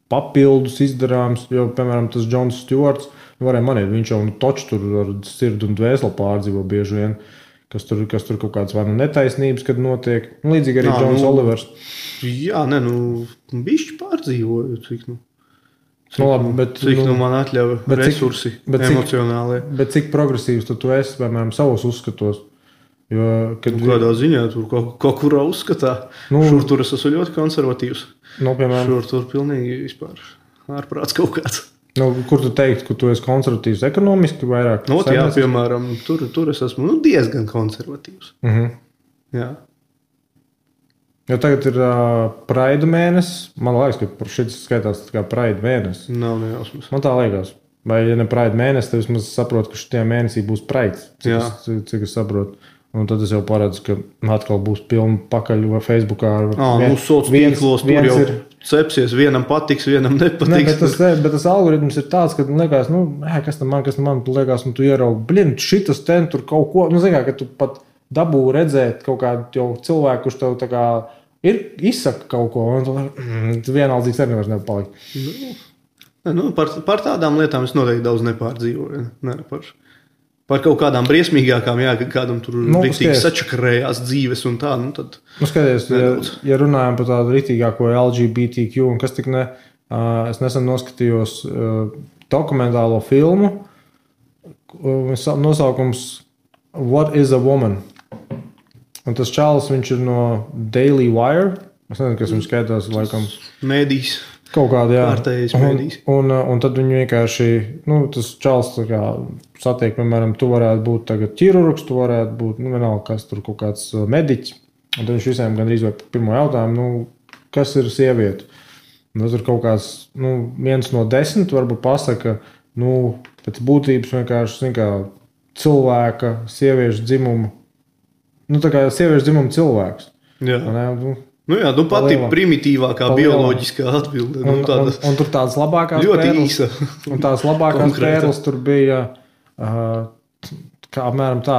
S1: papildus izdarāms. Jo, piemēram, tas Džons Stjuarts, varēja manīt, viņš jau toču tur ar sirdi un dvēseli pārdzīvo bieži vien, kas tur kaut kādas vai netaisnības, kad notiek. Līdzīgi arī Džons Olivers.
S2: Jā, bišķi pārdzīvoju, cik
S1: cik
S2: man atļauj resursi emocionālie.
S1: Bet cik progresīvs tu esi, piemēram, savos uzskatos? Jo,
S2: kādā ziņā tur kaut kurā uzskatā. Šur tur es esmu ļoti konservatīvs. Šur tur pilnīgi vispār ārprāts kaut kāds.
S1: Kur tu teikt, ka tu esi konservatīvs ekonomiski vairāk?
S2: Jā, piemēram, tur es esmu diezgan konservatīvs. Jā.
S1: Jo tagad ir Pride mēnesis. Man liekas, ka šis skaitās kā Pride mēnesis.
S2: Nav nejausmas.
S1: Man tā liekas. Vai ja ne Pride mēnesis, tad vismaz saprotu, ka šitajā mēnesī būs Pride. Cik es saprotu. Un tad es jau paredzu, ka atkal būs pilna pakaļ vai Facebookā.
S2: Sociālos tīklos tur jau cepsies. Vienam patiks, vienam nepatiks.
S1: Bet tas algoritms ir tāds, ka liekas, kas tam man liekas, tu ieraugi, šitas ten tur kaut ko. Ka tu pat dabū redzēt kaut kādu cilvēku, kurš tev tā kā izsaka kaut ko, un tu vienaldzīgs arī nevairs nepalikt.
S2: Par tādām lietām es noteikti daudz nepārdzīvoju. Par kaut kādām briesmīgākām, ka kādam tur riktīgi sačakarējās dzīves un tā. Tad
S1: skaties, ja runājam par tādu riktīgāko LGBTQ, un kas tik es nesen noskatījos dokumentālo filmu, nosaukums What is a Woman? Un tas čalis, viņš ir no Daily Wire. Es nezinu, kas viņš skaitās, laikam.
S2: Mēdīs.
S1: Kaut kādā, jā.
S2: Pārtējais mēdīs.
S1: Un tad viņi vienkārši, tas čalis tā kā satiek, piemēram, tu varētu būt tagad ķirurgs, tu varētu būt, vienalga, kas tur kaut kāds mediķis. Un tad viņš visiem gandrīz vai pirmo jautājumu, kas ir sieviete? Un tad tur kaut kāds, 1 no 10 varbūt pasaka, pēc būtības vienkārši, cilvēka, sieviešu dzimumu. Tā kā sieviešu dzimumu cilvēks.
S2: Jā. Pati primitīvākā bioloģiskā atbilde.
S1: Un tur tādas labākās
S2: ļoti īsa.
S1: Un tās labākās pērles tur bija kā apmēram tā,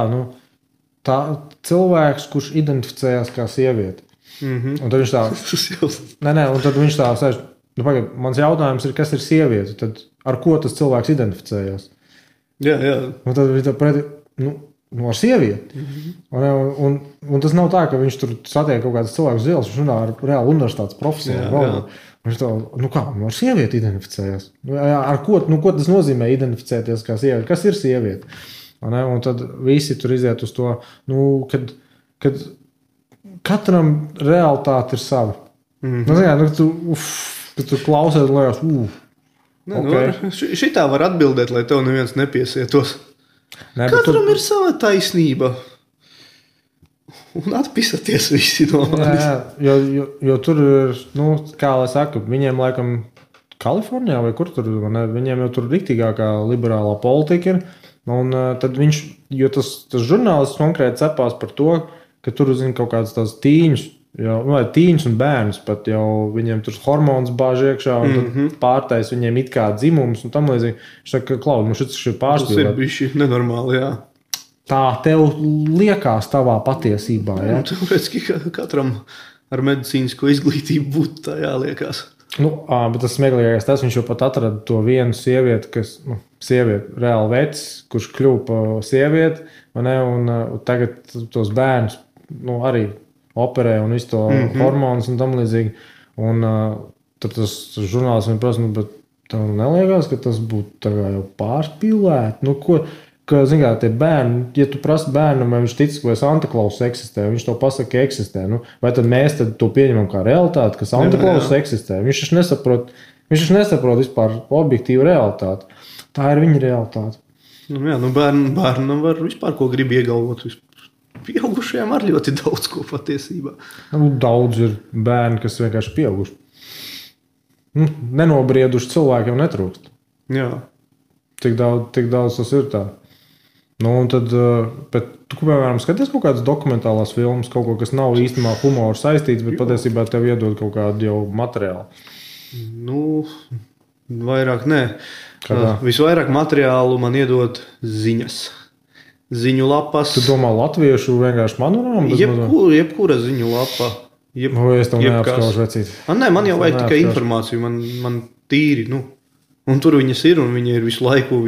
S1: tā cilvēks, kurš identificējās kā sieviete. Un tad viņš tā, un tad viņš tā sēž, mans jautājums ir, kas ir sieviete? Tad ar ko tas cilvēks identificējās?
S2: Jā.
S1: Un tad viņš tā pretī, ar sievieti. Un tas nav tā, ka viņš tur satiek kaut kādas cilvēkus zils, viņš runā ar reāli universitātes profesoru. Viņš tā, ar sievieti identificējās. Ar ko tas nozīmē identificēties kā sievieti? Kas ir sieviete? Un tad visi tur iziet uz to, kad katram realitāte ir sava. Kad tu klausies, liekas,
S2: okay. Šitā var atbildēt, lai tev neviens nepiesietos. Katram ir sava taisnība. Un atpisaties visi no manis.
S1: Jo tur ir, kā lai saka, viņiem laikam Kalifornijā vai kur tur, viņiem jau tur riktīgākā liberālā politika ir. Un tad tas žurnālists konkrēti cepās par to, ka tur zina kaut kādas tās tīņus, vai tīņus un bērnus pat jau viņiem tur hormonus bāž iekšā un tad pārtais viņiem it kā dzimums un tam līdzīgi. Viņš saka, Klaud, šis ir pārspīlēt.
S2: Tas ir bišķi nenormāli, jā.
S1: Tā tev liekas tavā patiesībā, jā?
S2: Tāpēc, ka katram ar medicīnisko izglītību būtu tā jāliekās.
S1: Bet tas smieklīgākais tas, viņš jau pat atrada to vienu sievieti, kas, reāli vecs, kurš kļuva pa sievieti, un tagad tos bērnus, arī operē un visu to hormonus un tam līdzīgi. Un tad tas žurnālists viņam prasa, bet tev neliekas, ka tas būtu tā kā jau pārspīlēt? Zin kā, tie bērni, ja tu prasi bērnam, vai viņš tic, vai Santa Claus eksistē, viņš to pasaka, ka eksistē, vai tad mēs to pieņemam kā realitāti, ka Santa Claus eksistē? Viņš taču nesaprot vispār objektīvu realitāti. Tā ir viņa realitāte.
S2: Bērnam var vispār ko grib iegalvot. Pieaugušajiem ar ļoti daudz ko patiesībā.
S1: Daudz ir bērni, kas vienkārši pieauguši. Nenobrieduši cilvēkiem netrūkst.
S2: Jā.
S1: Tik daudz tas ir tā. Un tad, bet tu, piemēram, skaties kaut kādas dokumentālās filmas, kaut ko, kas nav īstenībā humoru saistīts, bet patiesībā tev iedod kaut kādu jau materiālu?
S2: Vairāk nē. Visvairāk materiālu man iedod ziņas. Ziņu lapas.
S1: Tu domā latviešu vienkārši manorāmu?
S2: Jebkura ziņu lapa.
S1: Es tev neapskaužu vecīt.
S2: Nē, man jau vajag tikai informāciju. Man tīri, Un tur viņas ir, un viņa ir visu laiku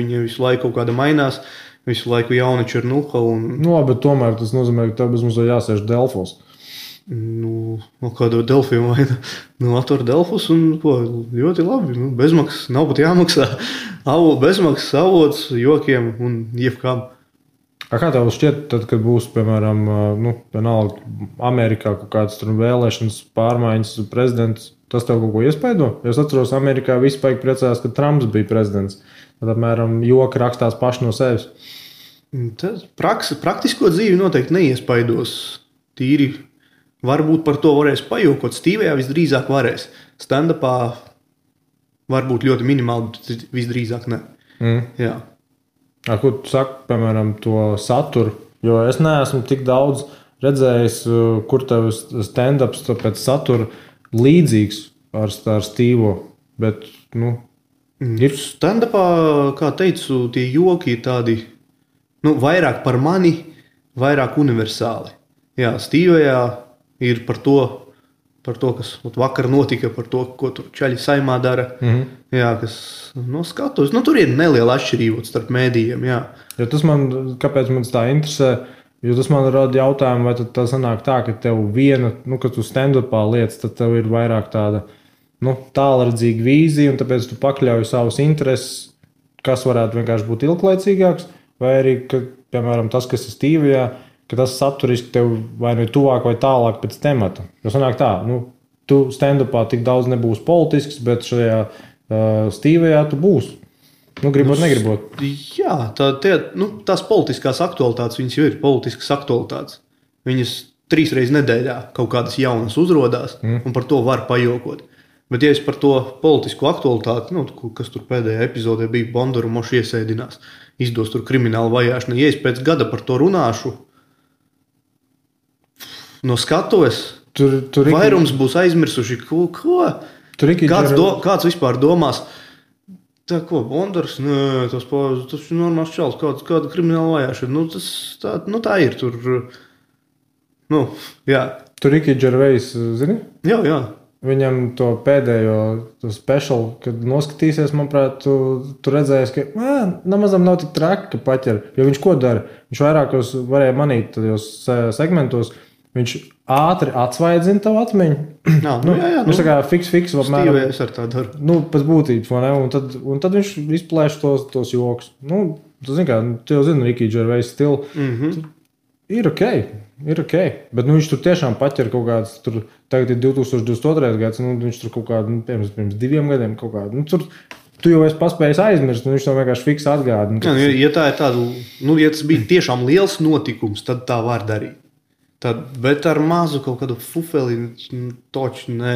S2: kaut kāda mainās. Visu laiku jauniči ir nuha.
S1: Bet tomēr tas nozīmē, ka tev bezmaz jāsēž Delfos.
S2: Kādu Delfiju vai atver Delfus un ļoti labi. Bezmaksas, nav pat jāmaksā. Bezmaksas avots, jokiem un jebkām.
S1: Kā tev šķiet, tad, kad būs, piemēram, vienalga Amerikā kaut kādas tur vēlēšanas, pārmaiņas, prezidents, tas tev kaut ko iespaido? Es atceros, Amerikā visi paigi priecājās, ka Trumps bija prezidents. Tad, apmēram, joki rakstās paši no sevis.
S2: Praktisko dzīvi noteikti neiespaidos. Tīri varbūt par to varēs pajokot. Stīvējā visdrīzāk varēs. Stand-upā varbūt ļoti minimāli, bet visdrīzāk ne. Jā.
S1: Ko tu saki, piemēram, to saturu? Jo es neesmu tik daudz redzējis, kur tev stand-ups pēc satura līdzīgs ar Stīvo. Bet, ir.
S2: Stand-upā, kā teicu, tie joki ir tādi, vairāk par mani, vairāk universāli. Jā, Stīvējā ir par to, kas vakar notika, par to, ko tur čaļi saimā dara. Jā, kas skatos. Tur ir neliela atšķirība starp mēdījiem, jā.
S1: Ja kāpēc man tā interesē? Jo tas man rada jautājumu, vai tad tā sanāk tā, ka tev viena, kad tu stand-upā liec, tad tev ir vairāk tāda, tālredzīga vīzija, un tāpēc tu pakļauj savus intereses, kas varētu vienkārši būt ilglaicīgāks, vai arī, ka, piemēram, tas, kas ir Stīvijā, ka tas saturiski tev vai nu tuvāk vai tālāk pēc temata. Jo sanāk tā, tu stand-upā tik daudz nebūs politisks, bet šajā Stīvijā tu būsi. Gribot, negribot.
S2: Jā, tās politiskās aktualitātes, viņas jau ir politiskas aktualitātes. Viņas 3 reizes nedēļā kaut kādas jaunas uzrodās, un par to var pajokot. Bet, ja es par to politisko aktualitāti, kas tur pēdējā epizodē bija, Bondaru moši iesēdinās, izdos tur kriminālu vajāšanu, ja es pēc gada par to runāšu, no skatuves, vairums būs aizmirsuši, ko? Kāds vispār domās? Tā ko, Bondars? Nē, tas ir normāls čals, kāda krimināla vajāšana. Tā ir tur. Jā.
S1: Tur Ricky Gervais, zini?
S2: Jā.
S1: Viņam to pēdējo special, kad noskatīsies, manuprāt, tu redzēsi, ka nemazam nav tik traki, ka paķer. Jo viņš ko dara? Viņš vairākos varēja manīt tajos segmentos. Viņš ātri atsvaidzina tavu atmiņu.
S2: Jā.
S1: Viņš tā kā fiks.
S2: Stīvējas ar tā daru.
S1: Pēc būtības, vai ne? Un tad viņš izplēš tos joks. Tu zini, kā, tu jau zini Ricky Gervais stilu. Ir ok. Bet viņš tur tiešām paķer kaut kāds, tagad ir 2022. gads, viņš tur kaut kādu, pirms 2 gadiem kaut kādu, tur tu jau esi paspējis aizmirst, un viņš to vienkārši fiks atgādina.
S2: Ja tā ir tāda, ja tas bija tiešām liels notikums, tad tā var darīt. Bet ar mazu kaut kādu fufeli toču, ne.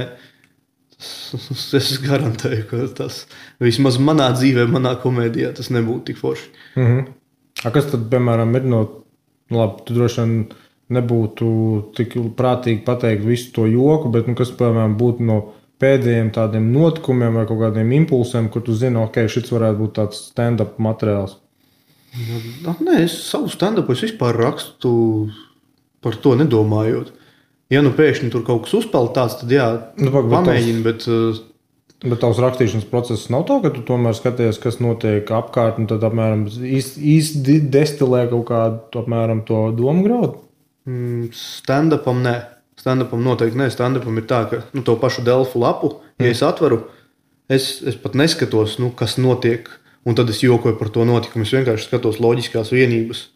S2: Es garantēju, ka tas vismaz manā dzīvē, manā komēdijā tas nebūtu tik forši.
S1: A kas tad, piemēram, ir labi, tu droši vien nebūtu tik prātīgi pateikt visu to joku, bet kas, piemēram, būtu no pēdējiem tādiem notikumiem vai kaut kādiem impulsiem, kur tu zini, ok, šis varētu būt tāds stand-up materiāls?
S2: Nē, es savu stand-upu es vispār rakstu par to nedomājot. Ja pēkšņi tur kaut kas uzpeld tāds, tad jā, pamēģini, bet...
S1: Bet tavs rakstīšanas process nav tā, ka tu tomēr skaties, kas notiek apkārt, un tad apmēram īsti destilē kaut kādu apmēram to domu graudu?
S2: Stand-upam nē. Stand-upam noteikti nē. Stand-upam ir tā, ka to pašu Delfu lapu, ja es atveru, es pat neskatos, kas notiek, un tad es jokoju par to notikumu. Es vienkārši skatos loģiskās vienības,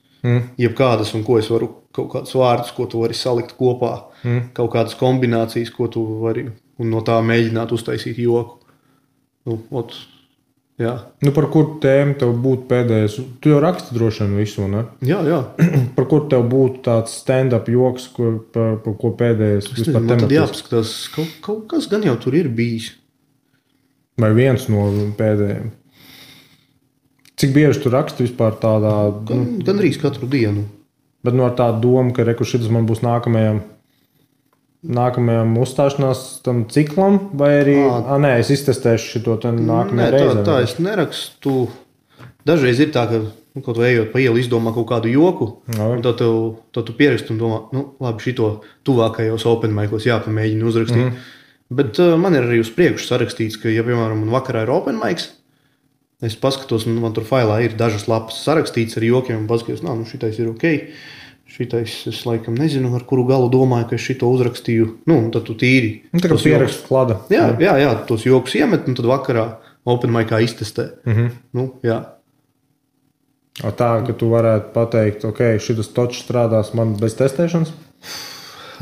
S2: jebkādas, un ko es varu, kaut kādus vārdus, ko tu vari salikt kopā, kaut kādas kombinācijas, ko tu vari, un no tā mēģināt uztaisīt joku. Jā.
S1: Par kuru tēmu tev būtu pēdējais? Tu jau raksti droši vien visu, ne?
S2: Jā.
S1: Par kuru tev būtu tāds stand-up joks, par ko pēdējais vispār
S2: tematis? Man tad jāpaskatās, kaut kas gan jau tur ir bijis.
S1: Vai viens no pēdējiem? Cik bieži tu raksti vispār tādā...
S2: Gandrīz katru dienu.
S1: Bet ar tādu domu, ka šitas man būs nākamajam uzstāšanās tam ciklam, vai arī, nē, es iztestēšu šito nākamajā reizē.
S2: Nē, tā es nerakstu. Dažreiz ir tā, ka, kaut vai ejot pa ielu izdomā kaut kādu joku, un tad tu pieraksti un domā, labi, šito tuvākajos open micos jāpamēģina uzrakstīt. Bet man ir arī uz priekšu sarakstīts, ka, ja, piemēram, man vakarā ir open mics, es paskatos, un man tur failā ir dažas lapas sarakstīts ar jokiem, un paskatos, šitais ir ok. Šitais, es laikam nezinu, ar kuru galu domāju, ka es šito uzrakstīju. Tad tu tīri.
S1: Tā kā pierakstu klada.
S2: Jā, tos jokus iemet, un tad vakarā open micā iztestē. Jā.
S1: Tā, ka tu varētu pateikt, ok, šitas točs strādās man bez testēšanas?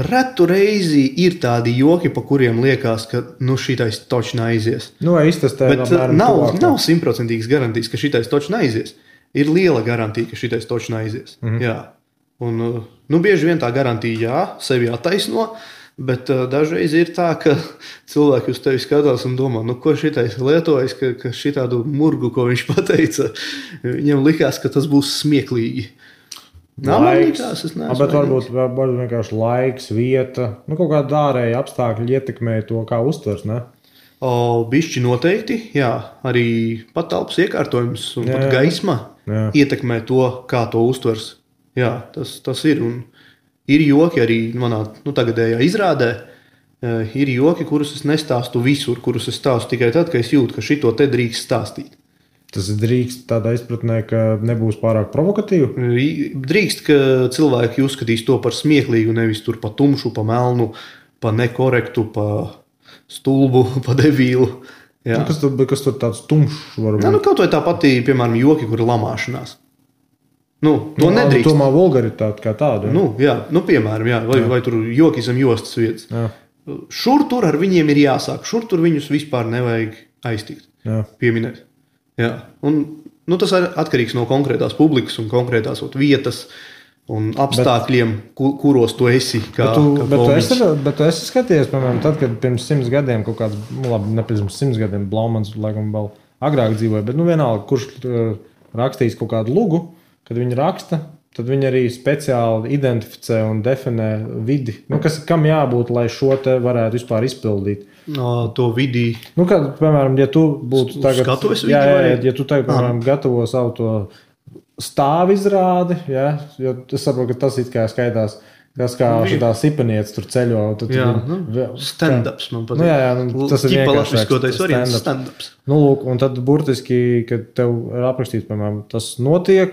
S2: Retu reizi ir tādi joki, pa kuriem liekas, ka šitais točs neaizies.
S1: Vai iztestē?
S2: Bet nav 100% garantijas, ka šitais točs neaizies. Ir liela garantija, ka šitais točs neaizies. Jā. Un, bieži vien tā garantija, sevi attaisno, bet dažreiz ir tā, ka cilvēki uz tevi skatās un domā, ko šitais lietojas, ka šitādu murgu, ko viņš pateica, viņam likās, ka tas būs smieklīgi.
S1: Laiks, bet varbūt vienkārši laiks, vieta, kaut kāda ārēja apstākļi ietekmē to, kā uztvers, ne?
S2: Bišķi noteikti, jā, arī patalpas iekārtojums un pat gaisma ietekmē to, kā to uztvers. Jā, tas ir. Un ir joki arī manā tagadējā izrādē. Ir joki, kurus es nestāstu visur, kurus es stāstu tikai tad, ka es jūtu, ka šito te drīkst stāstīt.
S1: Tas drīkst tādā izpratnē, ka nebūs pārāk provokatīvi?
S2: Drīkst, ka cilvēki uzskatīs to par smieklīgu, nevis tur pa tumšu, pa melnu, pa nekorektu, pa stulbu, pa devīlu. Jā.
S1: Kas tur tāds tumšs var būt?
S2: Kaut vai tā patī, piemēram, joki, kur ir lamāšanās. To nedrīkst.
S1: Tomēr vulgaritāte kā tāda.
S2: Piemēram, jā. Vai tur joki zem jostas vietas.
S1: Jā.
S2: Šur tur ar viņiem ir jāsāk. Šur tur viņus vispār nevajag aiztikt.
S1: Jā.
S2: Pieminēt. Jā. Un, tas ir atkarīgs no konkrētās publikas un konkrētās vietas un apstākļiem, kuros tu esi.
S1: Bet tu esi skatījies, piemēram, tad, kad pirms 100 gadiem kaut kāds, ne pirms 100 gadiem, Blaumans laikam vēl agrāk dzīvoja, bet vienalga, kurš rakstīs kaut kādu lugu, kad viņi raksta, tad viņi arī speciāli identificē un definē vidi. Kam jābūt, lai šo te varētu vispār izpildīt?
S2: To vidi.
S1: Kad, piemēram, ja tu būtu tagad...
S2: Skatuves vidi?
S1: Ja tu tagad, piemēram, gatavo savu to stāvu izrādi, jo es saprotu, ka tas it kā skaitās, kas kā šitā sipanieca tur ceļo.
S2: Stand-ups man patīk.
S1: Tas ir
S2: vienkāršāks stand-ups.
S1: Un tad burtiski, kad tev ir aprakstīts, piemēram, tas notiek,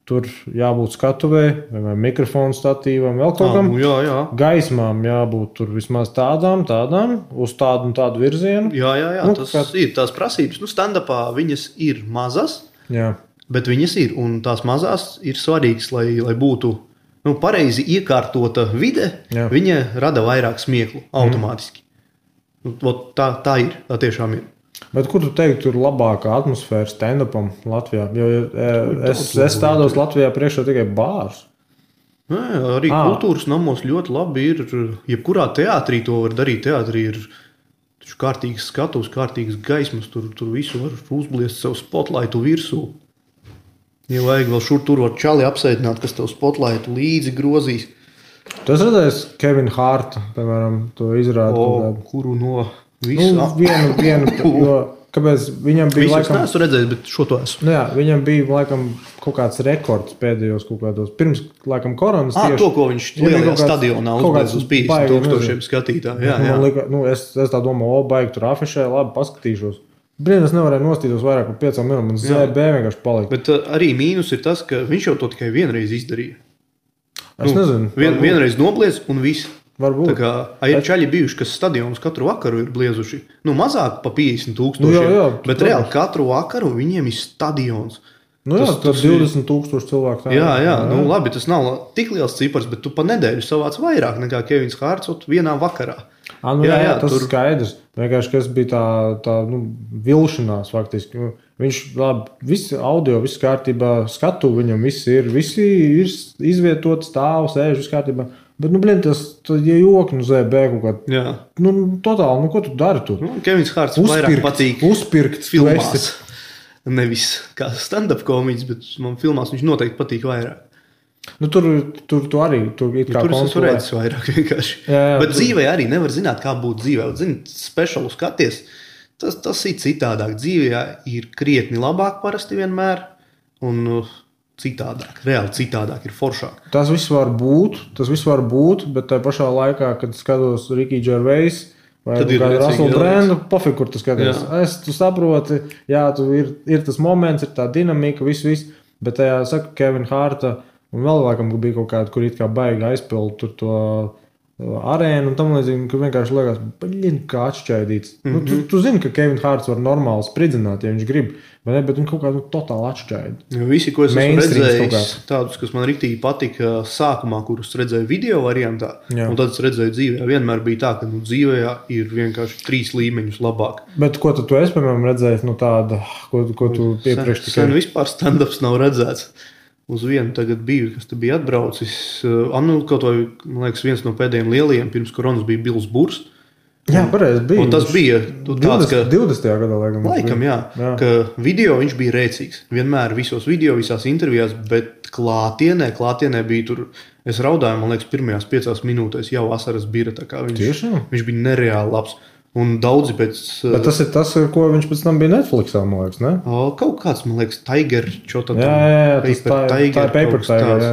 S1: tur jābūt skatuvē, vai mikrofonu statīvam, vēl kaut kam.
S2: Jā.
S1: Gaismām jābūt tur vismaz tādām, uz tādu un tādu virzienu.
S2: Jā, tas ir tās prasības. Stand-upā viņas ir mazas, Bet viņas ir, un tās mazās ir svarīgas, lai būtu pareizi iekārtota vide, viņa rada vairāk smieklu automātiski. Tā ir, tā tiešām ir.
S1: Bet kur tu teiktu, tur labākā atmosfēra stand-upam Latvijā? Jo es stādos Latvijā priekšā tikai bārs.
S2: Arī kultūras namos ļoti labi ir. Jebkurā teātrī to var darīt. Teātrī ir kārtīgas skatuves, kārtīgas gaismas. Tur visu var uzbliest sev spotlightu virsū. Ja vajag vēl šur tur var čali apsēdināt, kas tev spotlightu līdzi grozīs.
S1: Tu esi redzējis Kevinu Hārtu, piemēram, to izrādi?
S2: Kuru no visu?
S1: Vienu, kāpēc viņam bija
S2: laikam... Visus neesmu redzējis, bet šo to esmu.
S1: Jā, viņam bija laikam kaut kāds rekords pēdējos kaut kādos. Pirms laikam koronas tieši.
S2: To, ko viņš lielajā stadionā uzbēdz uz 50,000 skatītāju. Jā.
S1: Es tā domāju, baigi tur afišē, labi paskatīšos. Brīdī es nevarēju nostītos vairāk par 5 minūtēm, un ZB vienkārši palika.
S2: Bet arī mīnus ir tas, ka viņš jau to tikai vienreiz izdarīja.
S1: Es nezinu.
S2: Vienreiz nobliez un viss.
S1: Varbūt.
S2: Tā kā ir čaļi bijuši, kas stadionus katru vakaru ir bliezuši. Mazāk pa 50,000, bet reāli katru vakaru viņiem ir stadions.
S1: Tas 20,000 cilvēku.
S2: Jā. Labi, tas nav tik liels cipars, bet tu pa nedēļu savāc vairāk nekā Kevins Hārts vienā vakarā.
S1: Tas ir skaidrs. Vienkārši, kas bija tā vilšanās faktiski. Viņš visi audio, viss kārtībā, skatu viņam visi ir izvietoti, stāv, sēž, viss kārtībā. Bet, tas joki ZB kaut kādā. Totāli, ko tu dari tur?
S2: Kevins Hārts vairāk patīk
S1: uzpirkt
S2: filmās. Nevis kā stand-up komiķis, bet man filmās viņš noteikti patīk vairāk.
S1: Tur arī tur it kā
S2: es redzēju vairāk vienkārši. Bet dzīvē arī nevar zināt, kā būtu dzīvē. Speciālu skaties, tas ir citādāk. Dzīvē ir krietni labāk parasti vienmēr, un citādāk, reāli citādāk ir foršāk. Tas viss var
S1: būt, bet tā pašā laikā, kad skatos Ricky Gervais vai Russell Brandu, pofik, kur tu skaties. Tu saproti, ir tas moments, ir tā dinamika, viss, bet tajā saka Kevina Hārta. Un vēl laikam bija kaut kāda, kur it kā baigi aizpild tur to arēnu un tam līdzīgi, ka vienkārši liekas, kā atšķaidīts. Tu zini, ka Kevin Hārts var normāli spridzināt, ja viņš grib, bet viņš kaut kādu totāli atšķaidi.
S2: Visi, ko es esmu redzējis, tādus, kas man riktīgi patika sākumā, kurus redzēju video variantā, un tad es redzēju dzīvē, vienmēr bija tā, ka dzīvē ir vienkārši 3 līmeņus labāk.
S1: Bet ko tu esi, piemēram, redzējis, tāda, ko tu iepriekš tikai?
S2: Sen vispār stand-ups nav redzēts. Uz vienu tagad biju, kas te bija atbraucis. Kaut vai, man liekas, viens no pēdējiem lielajiem pirms koronas bija Bills Burs.
S1: Jā, pareizi bija.
S2: Un tas bija tāds, ka
S1: 20. gadā,
S2: laikam, jā. Ka video viņš bija rēcīgs. Vienmēr visos video, visās intervijās, bet klātienē bija tur, es raudāju, man liekas, pirmajās 5 minūtēs jau asaras bira, tā kā viņš bija nereāli labs. Un daudzi pēc...
S1: Bet tas ir tas, ko viņš pēc tam bija Netflixā, man liekas, ne?
S2: Kaut kāds, man liekas, Tiger,
S1: Paper Tiger,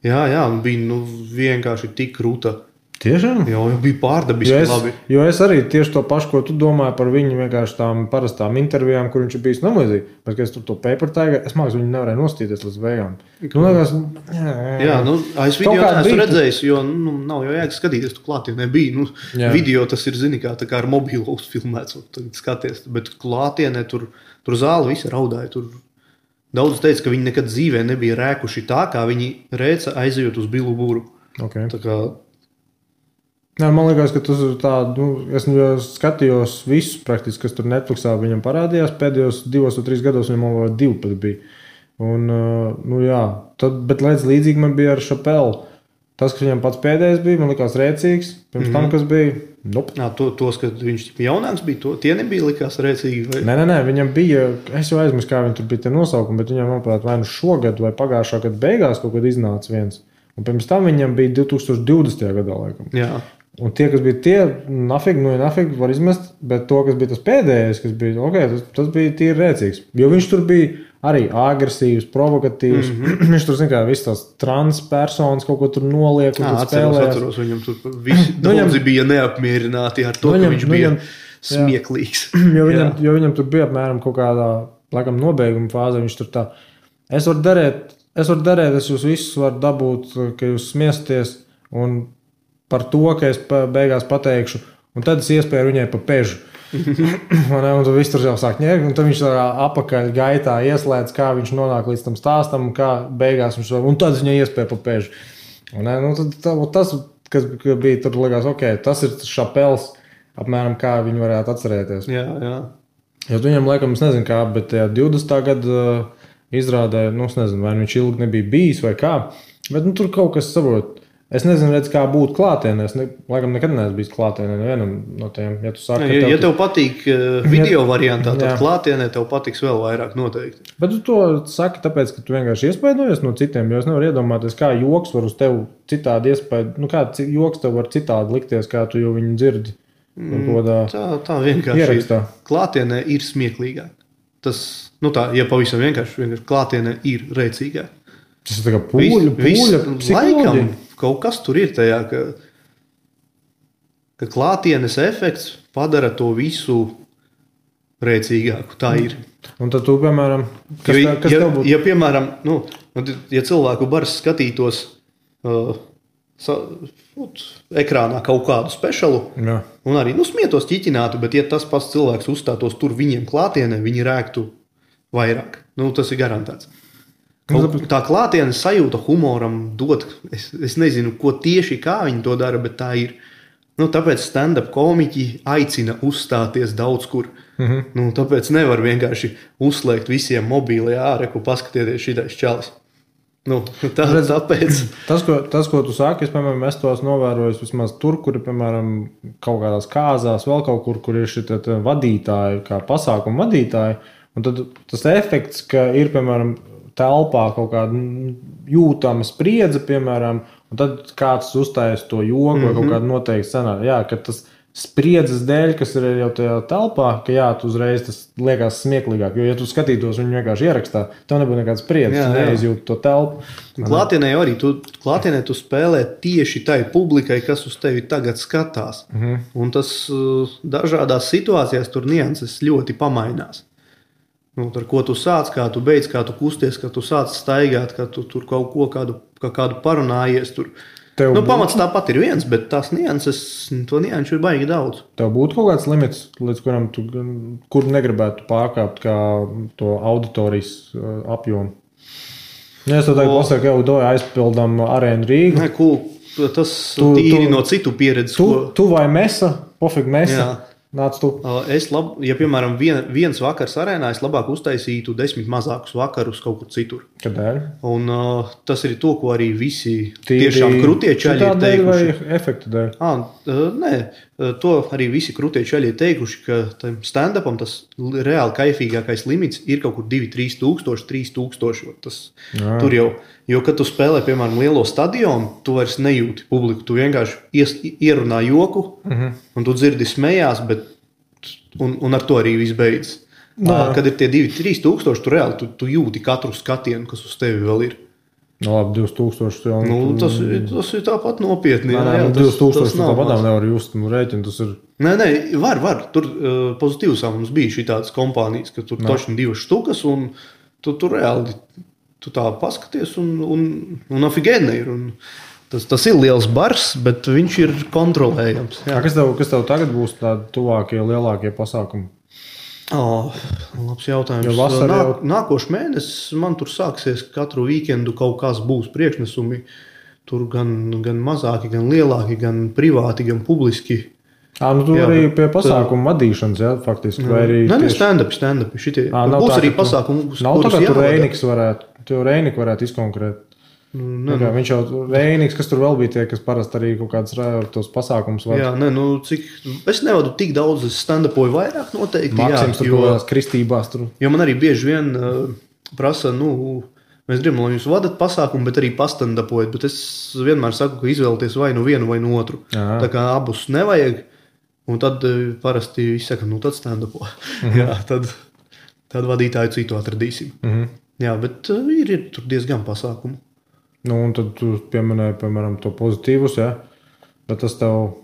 S2: jā, un bija vienkārši tik krūta.
S1: Tiešām?
S2: Jā, jau bija pārdabiski labi.
S1: Jo es arī tieši to pašu, ko tu domāji par viņu vienkārši tām parastām intervijām, kur viņš ir bijis namlīdzīgi. Bet, kad es tur to Paper Tiger, es māks, viņu nevarēju nostīties līdz beigām. Liekas,
S2: es video neesmu redzējis, jo nav jau jēga skatīties, tu klātienē bija. Video tas ir, zini, kā ar mobilo uzfilmēts, un tagad skaties. Bet klātienē tur zāli visi raudāja. Tur daudz teica, ka viņi nekad dzīvē nebija rēkuši tā, kā viņi rēca aizejot uz Billu Buru.
S1: Okay.
S2: Tā kā
S1: man liekas, ka tas ir tā, es skatījos visus praktiski, kas tur Netflixā viņam parādījās, pēdējos 2 vai 3 gados viņam vēl 2 pat bija. Un, bet līdzīgi man bija ar Chappelle. Tas, kas viņam pats pēdējais bija, man likās rēcīgs, pirms tam, kas bija,
S2: tos, kad viņš jaunāks bija, tie nebija likās rēcīgi? Vai?
S1: Nē, viņam bija, es jau aizmirsu, kā viņi tur bija tie nosaukumi, bet viņam, manuprāt, vai šogad vai pagājušā gada beigās kaut kad iznāca viens. Un pirms tam viņam bija 2020. gadā, laikam.
S2: Jā.
S1: Un tie, kas bija tie, nafig var izmest, bet to, kas bija tas pēdējais, kas bija, tas bija tīri rēcīgs. Jo viņš tur bija arī agresīvs, provokatīvs. Viņš tur, zin kā, viss tās transpersonas kaut ko tur noliek un tur spēlējās.
S2: Atceros, viņam tur visi daudzi bija neapmierināti ar to, ka viņš bija smieklīgs.
S1: Jo viņam tur bija apmēram kaut kādā, laikam, nobeiguma fāze, viņš tur tā, es varu darēt, es jūs visus varu dabūt, ka jūs smiesties un par to, ka es beigās pateikšu, un tad es iespēju viņai pa pežu. Un tu viss tur jau sāk ņērt, un tad viņš apakaļ gaitā ieslēdz, kā viņš nonāk līdz tam stāstam, un kā beigās viņš un tad viņa iespēja pa pēžu. Tas, kas bija tur, likās, ok, tas ir Šapels, apmēram kā viņu varētu atcerēties.
S2: Jā.
S1: Jo viņam, laikam, es nezinu kā, bet 20. gada izrādē, es nezinu, vai viņš ilgi nebija bijis vai kā, bet tur kaut kas saprot. Es nezinu, kā būt klātienē. Es laikam nekad neesmu bijis klātienē nevienam no tiem. Ja tu saki,
S2: ja tev patīk video variantā, tad klātienē tev patiks vēl vairāk noteikti.
S1: Bet tu to saki tāpēc, ka tu vienkārši iespaidojies no citiem, jo es nevaru iedomāties, kā joks var uz tevi citādi iespaidu. Kā joks tev var citādi likties, kā tu jau viņu dzirdi.
S2: Tā vienkārši
S1: ierakstā.
S2: Klātienē ir smieklīgāk. Tas, ja pavisam vienkārši klātienē ir rēcīgāk.
S1: Tas ir tā kā pūļa psiholoģija.
S2: Kaut kas tur ir tajā, ka klātienes efekts padara to visu rēcīgāku. Tā ir.
S1: Un tad tu, piemēram, kas tev būtu?
S2: Ja, piemēram, ja cilvēku bars skatītos ekrānā kaut kādu specialu, un arī smietos ķiķinātu, bet ja tas pats cilvēks uzstātos tur viņiem klātienē, viņi rēktu vairāk. Tas ir garantēts. Tā klātienes sajūta humoram dod, es nezinu, ko tieši kā viņi to dara, bet tā ir. Tāpēc stand-up komiķi aicina uzstāties daudz kur. Tāpēc nevar vienkārši uzslēgt visiem mobīlē āreku, paskatieties šitais čalis. Tāpēc.
S1: Tas, ko tu sāki, es tos novēroju vismaz tur, kur ir, piemēram, kaut kādās kāzās, vēl kaut kur ir šie vadītāji, kā pasākumu vadītāji, un tad tas efekts, ka ir, piemēram, telpā kaut kāda jūtama spriedze, piemēram, un tad kāds uzstājas to joku vai kaut kādu noteikti scenāriju. Jā, ka tas spriedzes dēļ, kas ir jau tajā telpā, ka tu uzreiz tas liekas smieklīgāk. Jo, ja tu skatītos viņu vienkārši ierakstā, tev nebūtu nekāds spriedzes, tu neizjūti to telpu.
S2: Klātienē arī klātienē tu spēlē tieši tai publikai, kas uz tevi tagad skatās. Un tas dažādās situācijās tur nianses ļoti pamainās. Ar ko tu sāc, kā tu beidz, kā tu kusties, kā tu sāc staigāt, kā tu tur kaut ko kādu parunājies. Pamats tāpat ir viens, bet tās nianses, to nianšu ir baigi daudz.
S1: Tev būtu kaut kāds limits, līdz kuram tu kur negribētu pārkāpt kā to auditorijas apjomu. Ja es tev tagad pasaku, jau aizpildām Arēnu Rīgu.
S2: Nē, tas tīri no citu pieredzes.
S1: Tu vai Mesa, pofīgi Mesa. Jā. Nāc tu.
S2: Ja, piemēram, viens vakars arēnā, es labāk uztaisītu 10 mazākus vakarus kaut kur citur.
S1: Kādēļ?
S2: Un tas ir to, ko arī visi tiešām krutie čaļi ir teikuši.
S1: Vai efektu dēļ?
S2: Nē, to arī visi krutie čaļi ir teikuši, ka stand-upam tas reāli kaifīgākais limits ir kaut kur 2-3 tūkstoši. Tur jau, jo, kad tu spēlē, piemēram, lielo stadionu, tu vairs nejūti publiku, tu vienkārši ierunā joku, un tu dzirdi smējās, un ar to arī viss beidzas. Kad ir tie 2-3 tūkstoši, tu reāli tu jūti katru skatienu, kas uz tevi vēl ir.
S1: Labi, 2000 jau.
S2: Tas ir tāpat nopietni.
S1: Nē, 2000 tāpat nevar just rēķinu. Tas ir.
S2: Nē, var. Tur pozitīvs mums bija šī tādas kompānijas, ka tur točni 2 štukas, un tu reāli tu tā paskaties, un afigēni ir. Tas ir liels bars, bet viņš ir kontrolējams.
S1: Jā. Kas tev tagad būs tādi tuvākie, lielākie pasākumi?
S2: Labs jautājums. Nākošais mēnesis man tur sāksies katru weekendu kaut kas būs priekšnesumi. Tur gan mazāki, gan lielāki, gan privāti, gan publiski.
S1: Tu arī pie pasākumu vadīšanas, jā, faktiski.
S2: Nē, stand-up. Būs arī pasākumi,
S1: kurus jāvada. Reinika varētu izkonkrēt. Viņš jau Reiniks, kas tur vēl bija tie, kas parasti arī kaut kādas tos pasākumus vada.
S2: Jā, es nevadu tik daudz, es stand-upoju vairāk noteikti.
S1: Maksims tur kaut kādās kristībās tur.
S2: Jo man arī bieži vien prasa, mēs gribam, lai jūs vadat pasākumu, bet arī pastand-upojat, bet es vienmēr saku, ka izvēlieties vai nu vienu vai nu otru. Jā. Tā kā abus nevajag, un tad parasti visi saka, tad stand-upo. Jā, tad vadītāju citu atradīsim. Jā, bet ir tur diezgan pasākumu.
S1: Un tad tu pieminēji, piemēram, to pozitīvus, jā? Bet tas tev...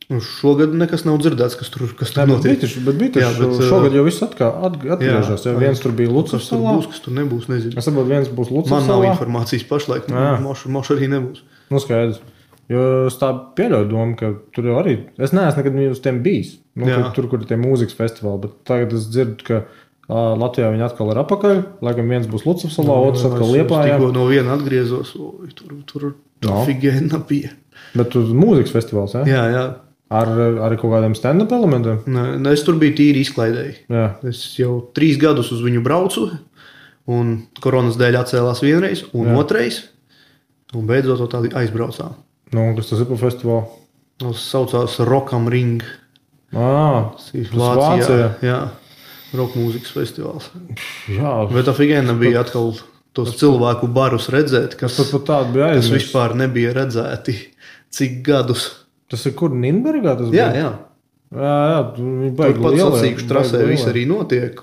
S2: Šogad nekas nav dzirdēts, kas tur notiek.
S1: Bet šogad jau viss atgriežas. Viens tur bija Lucas salā.
S2: Kas tur nebūs, nezinu.
S1: Es saprotu, viens būs Lucas salā.
S2: Man nav informācijas pašlaik. Mošu arī nebūs.
S1: Skaidrs. Jo es tā pieļauju domu, ka tur jau arī, es neesmu nekad uz tiem bijis, tur, kur ir tie mūzikas festivāli, bet tagad es dzirdu, ka Latvijā viņi atkal ir apakaļ, laikam viens būs Lucavsalā, otrs atkal Liepājā.
S2: Tikko no viena atgriezos, tur figēna bija.
S1: Bet uz mūzikas festivāls,
S2: jā? Jā.
S1: Ar kaut kādiem stand-up elementiem?
S2: Nē, es tur biju tīri izklaidēji.
S1: Jā.
S2: Es jau 3 gadus uz viņu braucu, un koronas dēļ atcēlās vienreiz, un otrais, un beidzot to tādi aizbraucām.
S1: Kas tas ir par festivālu?
S2: Tas saucās Rock am Ring.
S1: Tas Vācijā.
S2: Jā, rock mūzikas festivāls.
S1: Jā.
S2: Bet tā figēna bija atkal tos cilvēku barus redzēt, kas vispār nebija redzēti cik gadus.
S1: Tas ir kur Nīnbergā?
S2: Jā.
S1: Viņi
S2: tur pat sacīkšu trasē viss arī notiek.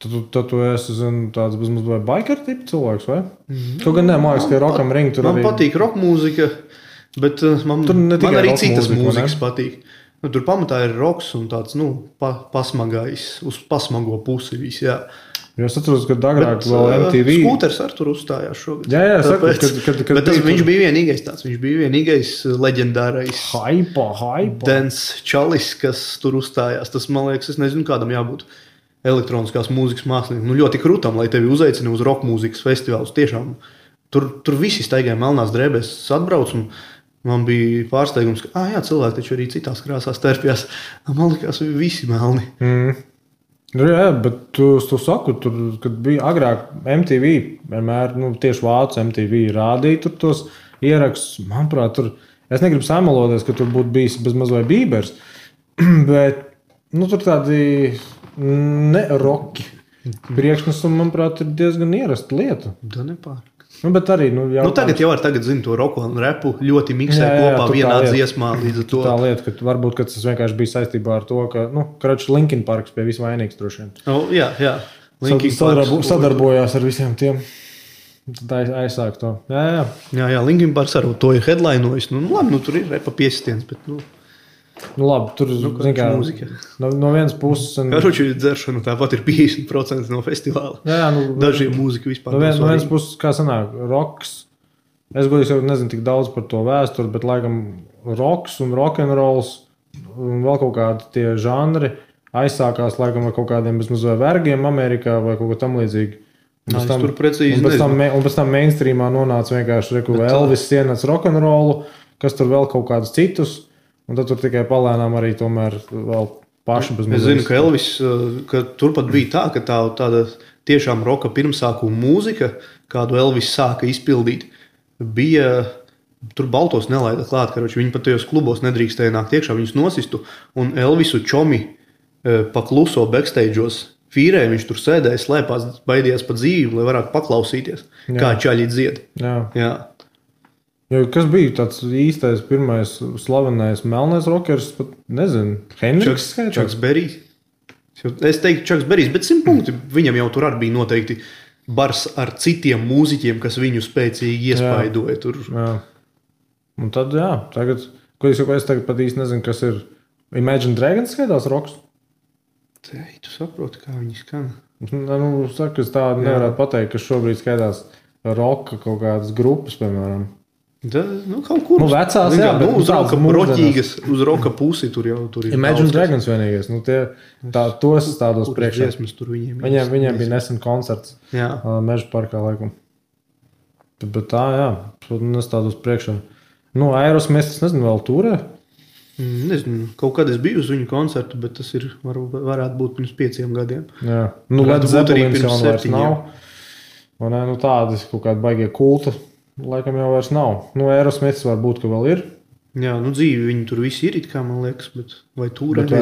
S1: Tad tu esi tāds bezmaz vai biker tipu cilvēks, vai? Tu gan nemāks, ka Rock am Ring tur
S2: man
S1: arī...
S2: Man patīk rock mūzika, bet man arī citas mūzikas patīk. Tur pamatā ir rocks un tāds, pasmagais, uz pasmago pusi viss, jā.
S1: Jo es atceros, ka agrāk vēl MTV...
S2: Skūters ar tur uzstājās šogad.
S1: Jā,
S2: bet viņš bija vienīgais tāds. Viņš bija vienīgais leģendārais
S1: Hypa.
S2: Dance čalis, kas tur uzstājās. Tas, man liekas, es nezinu, kādam jābūt elektroniskās mūzikas māksliniekam. Ļoti krūtam, lai tevi uzaicina uz rock mūzikas festivālus. Tiešām, tur visi staigāja melnās drēbēs. Es atbraucu un man bija pārsteigums, ka cilvēki taču arī citās krāsās terpjās. Man likās, visi melni.
S1: Jā, bet tu saku, tur, kad bija agrāk MTV, vienmēr, tieši vācu MTV rādīja tur tos ierakstus. Manuprāt, tur, es negribu samaloties, ka tur būtu bijis bezmaz vai Bībers, bet, tur tādi ne-roki priekšnesumi, manuprāt, ir diezgan ierasta lieta.
S2: Da nepārāk.
S1: Bet arī,
S2: tagad jau zinu to roku un repu ļoti miksē kopā vienā dziesmā līdz ar to.
S1: Tā lieta, ka varbūt, ka tas vienkārši bija saistībā ar to, ka, Linkin Parks pie visvainīgs droši vien.
S2: Jā.
S1: Sadarbojās ar visiem tiem. Tad aizsāk to.
S2: Jā, Linkin Parks ar to ir headlinojis. Labi, tur ir repa piesitiens, bet,
S1: labi, tur
S2: mūzika.
S1: No vienas puses...
S2: Karoči dzeršana tāpat ir 50% no festivāla.
S1: Jā,
S2: dažiem mūzika vispār.
S1: No vienas puses, kā sanāk, roks. Es godīgi jau nezinu tik daudz par to vēsturi, bet laikam roks un rock'n'rolls un vēl kaut kādi tie žanri aizsākās laikam ar kaut kādiem bezmaz vai vergiem Amerikā vai kaut ko tam līdzīgi.
S2: Tur precīzi nezinu.
S1: Un pēc tam mainstreamā nonāca vienkārši Elvis ienāca rock'n'rollu, kas tur vēl kaut kādus citus. Un tad tur tikai palēnām arī tomēr vēl paši bez mazliet.
S2: Es zinu, ka Elvis, ka turpat bija tā, ka tāda tiešām roka pirmsākuma mūzika, kādu Elvis sāka izpildīt, bija, tur baltos nelaida klāt, karoči, viņi pat tajos klubos nedrīkstēja nākt iekšā, viņus nosistu, un Elvisu čomi pakluso backstage'os fīrē, viņš tur sēdēja, slēpās, baidījās pa dzīvi, lai varētu paklausīties, kā čaļi dzied. Jā.
S1: Kas bija tāds īstais pirmais slavenais melnais rockers, pat nezinu, Hendriks skaitās?
S2: Čaks Berijs. Es teiktu Čaks Berijs, bet 100 punkti viņam jau tur arī bija noteikti bars ar citiem mūziķiem, kas viņu spēcīgi iespaidoja tur.
S1: Jā. Un tad, tagad, es tagad pat īsti nezinu, kas ir Imagine Dragons skaitās roks?
S2: Tu saproti, kā viņi skan.
S1: Saka, es tādu nevarētu pateikt, ka šobrīd skaitās roka kaut kādas grupas, piemēram.
S2: Kaut kur
S1: vecās,
S2: bet uz roka pusi tur jau tur ir.
S1: Imagine Dragons vienīgais. Tos tādos priekšā. Viņiem bija nesen koncerts Meža parkā laikam. Bet tā, es tādos priekšā. Aerosmith, es nezinu, vēl turē?
S2: Nezinu, kaut kad es biju uz viņu koncertu, bet tas ir, varētu būt pirms 5 gadiem.
S1: Jā. Led Zeppelins jau vairs nav. Tādi kaut kādi baigie kulta. Laikam jau vairs nav. Aerosmiths varbūt, ka vēl ir.
S2: Jā, dzīvi viņi tur visi ir, kā man liekas, bet vai tur ir?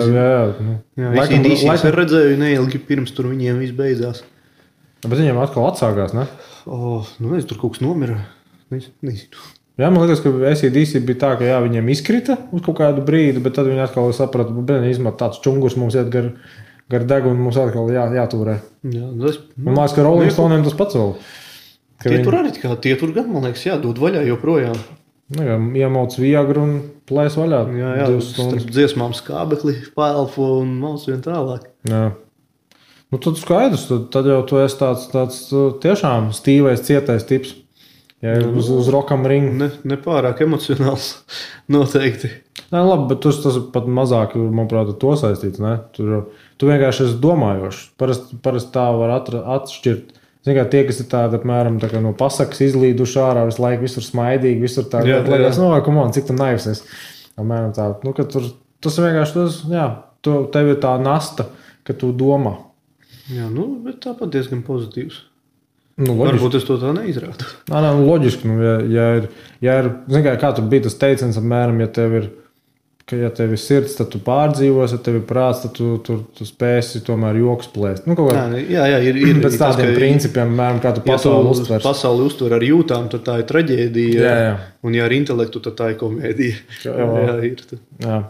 S1: Laikam
S2: es redzēju neilgi pirms tur viņiem viss beidzās.
S1: Bet viņiem atkal atsākās, ne?
S2: Es tur kaut kas nomira. Nezinu.
S1: Jā, man liekas, ka AC/DC bija tā, ka viņiem izkrita uz kaut kādu brīdi, bet tad viņi atkal saprata, ka tāds čungurs mums iet gar degunu, mums atkal jātūrē. Man liekas, ka Rolling Stone'iem tas pats vēl.
S2: Tie tur gan, man liekas, dod vaļā joprojām.
S1: Iemauc viegru un plēs vaļā.
S2: Jā, starp dziesmām skābekli, pēlpo un mauc vien tālāk.
S1: Jā. Tad skaidrs, tad jau tu esi tāds tiešām stīvais, cietais tips. Ja uz Rockam ringu.
S2: Nepārāk emocionāls noteikti.
S1: Nē, labi, bet tas ir pat mazāk, manuprāt, to saistīts. Ne? Tu vienkārši esi domājošs. Parasti tā var atšķirt. Zin kā tie, kas ir tādi, apmēram, tā kā no pasakas izlīduši ārā, visu laiku visur smaidīgi, visur tā, cik tu naivs esi. Apmēram tā, ka tas vienkārši, tev ir tā nasta, ka tu domā.
S2: Jā, bet tāpat diezgan pozitīvs.
S1: Loģiski.
S2: Varbūt es to tā neizrādu.
S1: Nē, loģiski. Ja ir, zin kā tur bija tas teiciens, apmēram, ja tev ir sirds, tad tu pārdzīvos, ja tev ir prāts, tad tu spēsi tomēr joks plēst.
S2: Jā, ir
S1: pēc tādiem principiem, apmēram, kā tu pasauli uztver.
S2: Pasauli uztver ar jūtām, tad tā ir traģēdija.
S1: Jā.
S2: Un ja ar intelektu, tad tā ir komēdija. Jā, ir.
S1: Jā.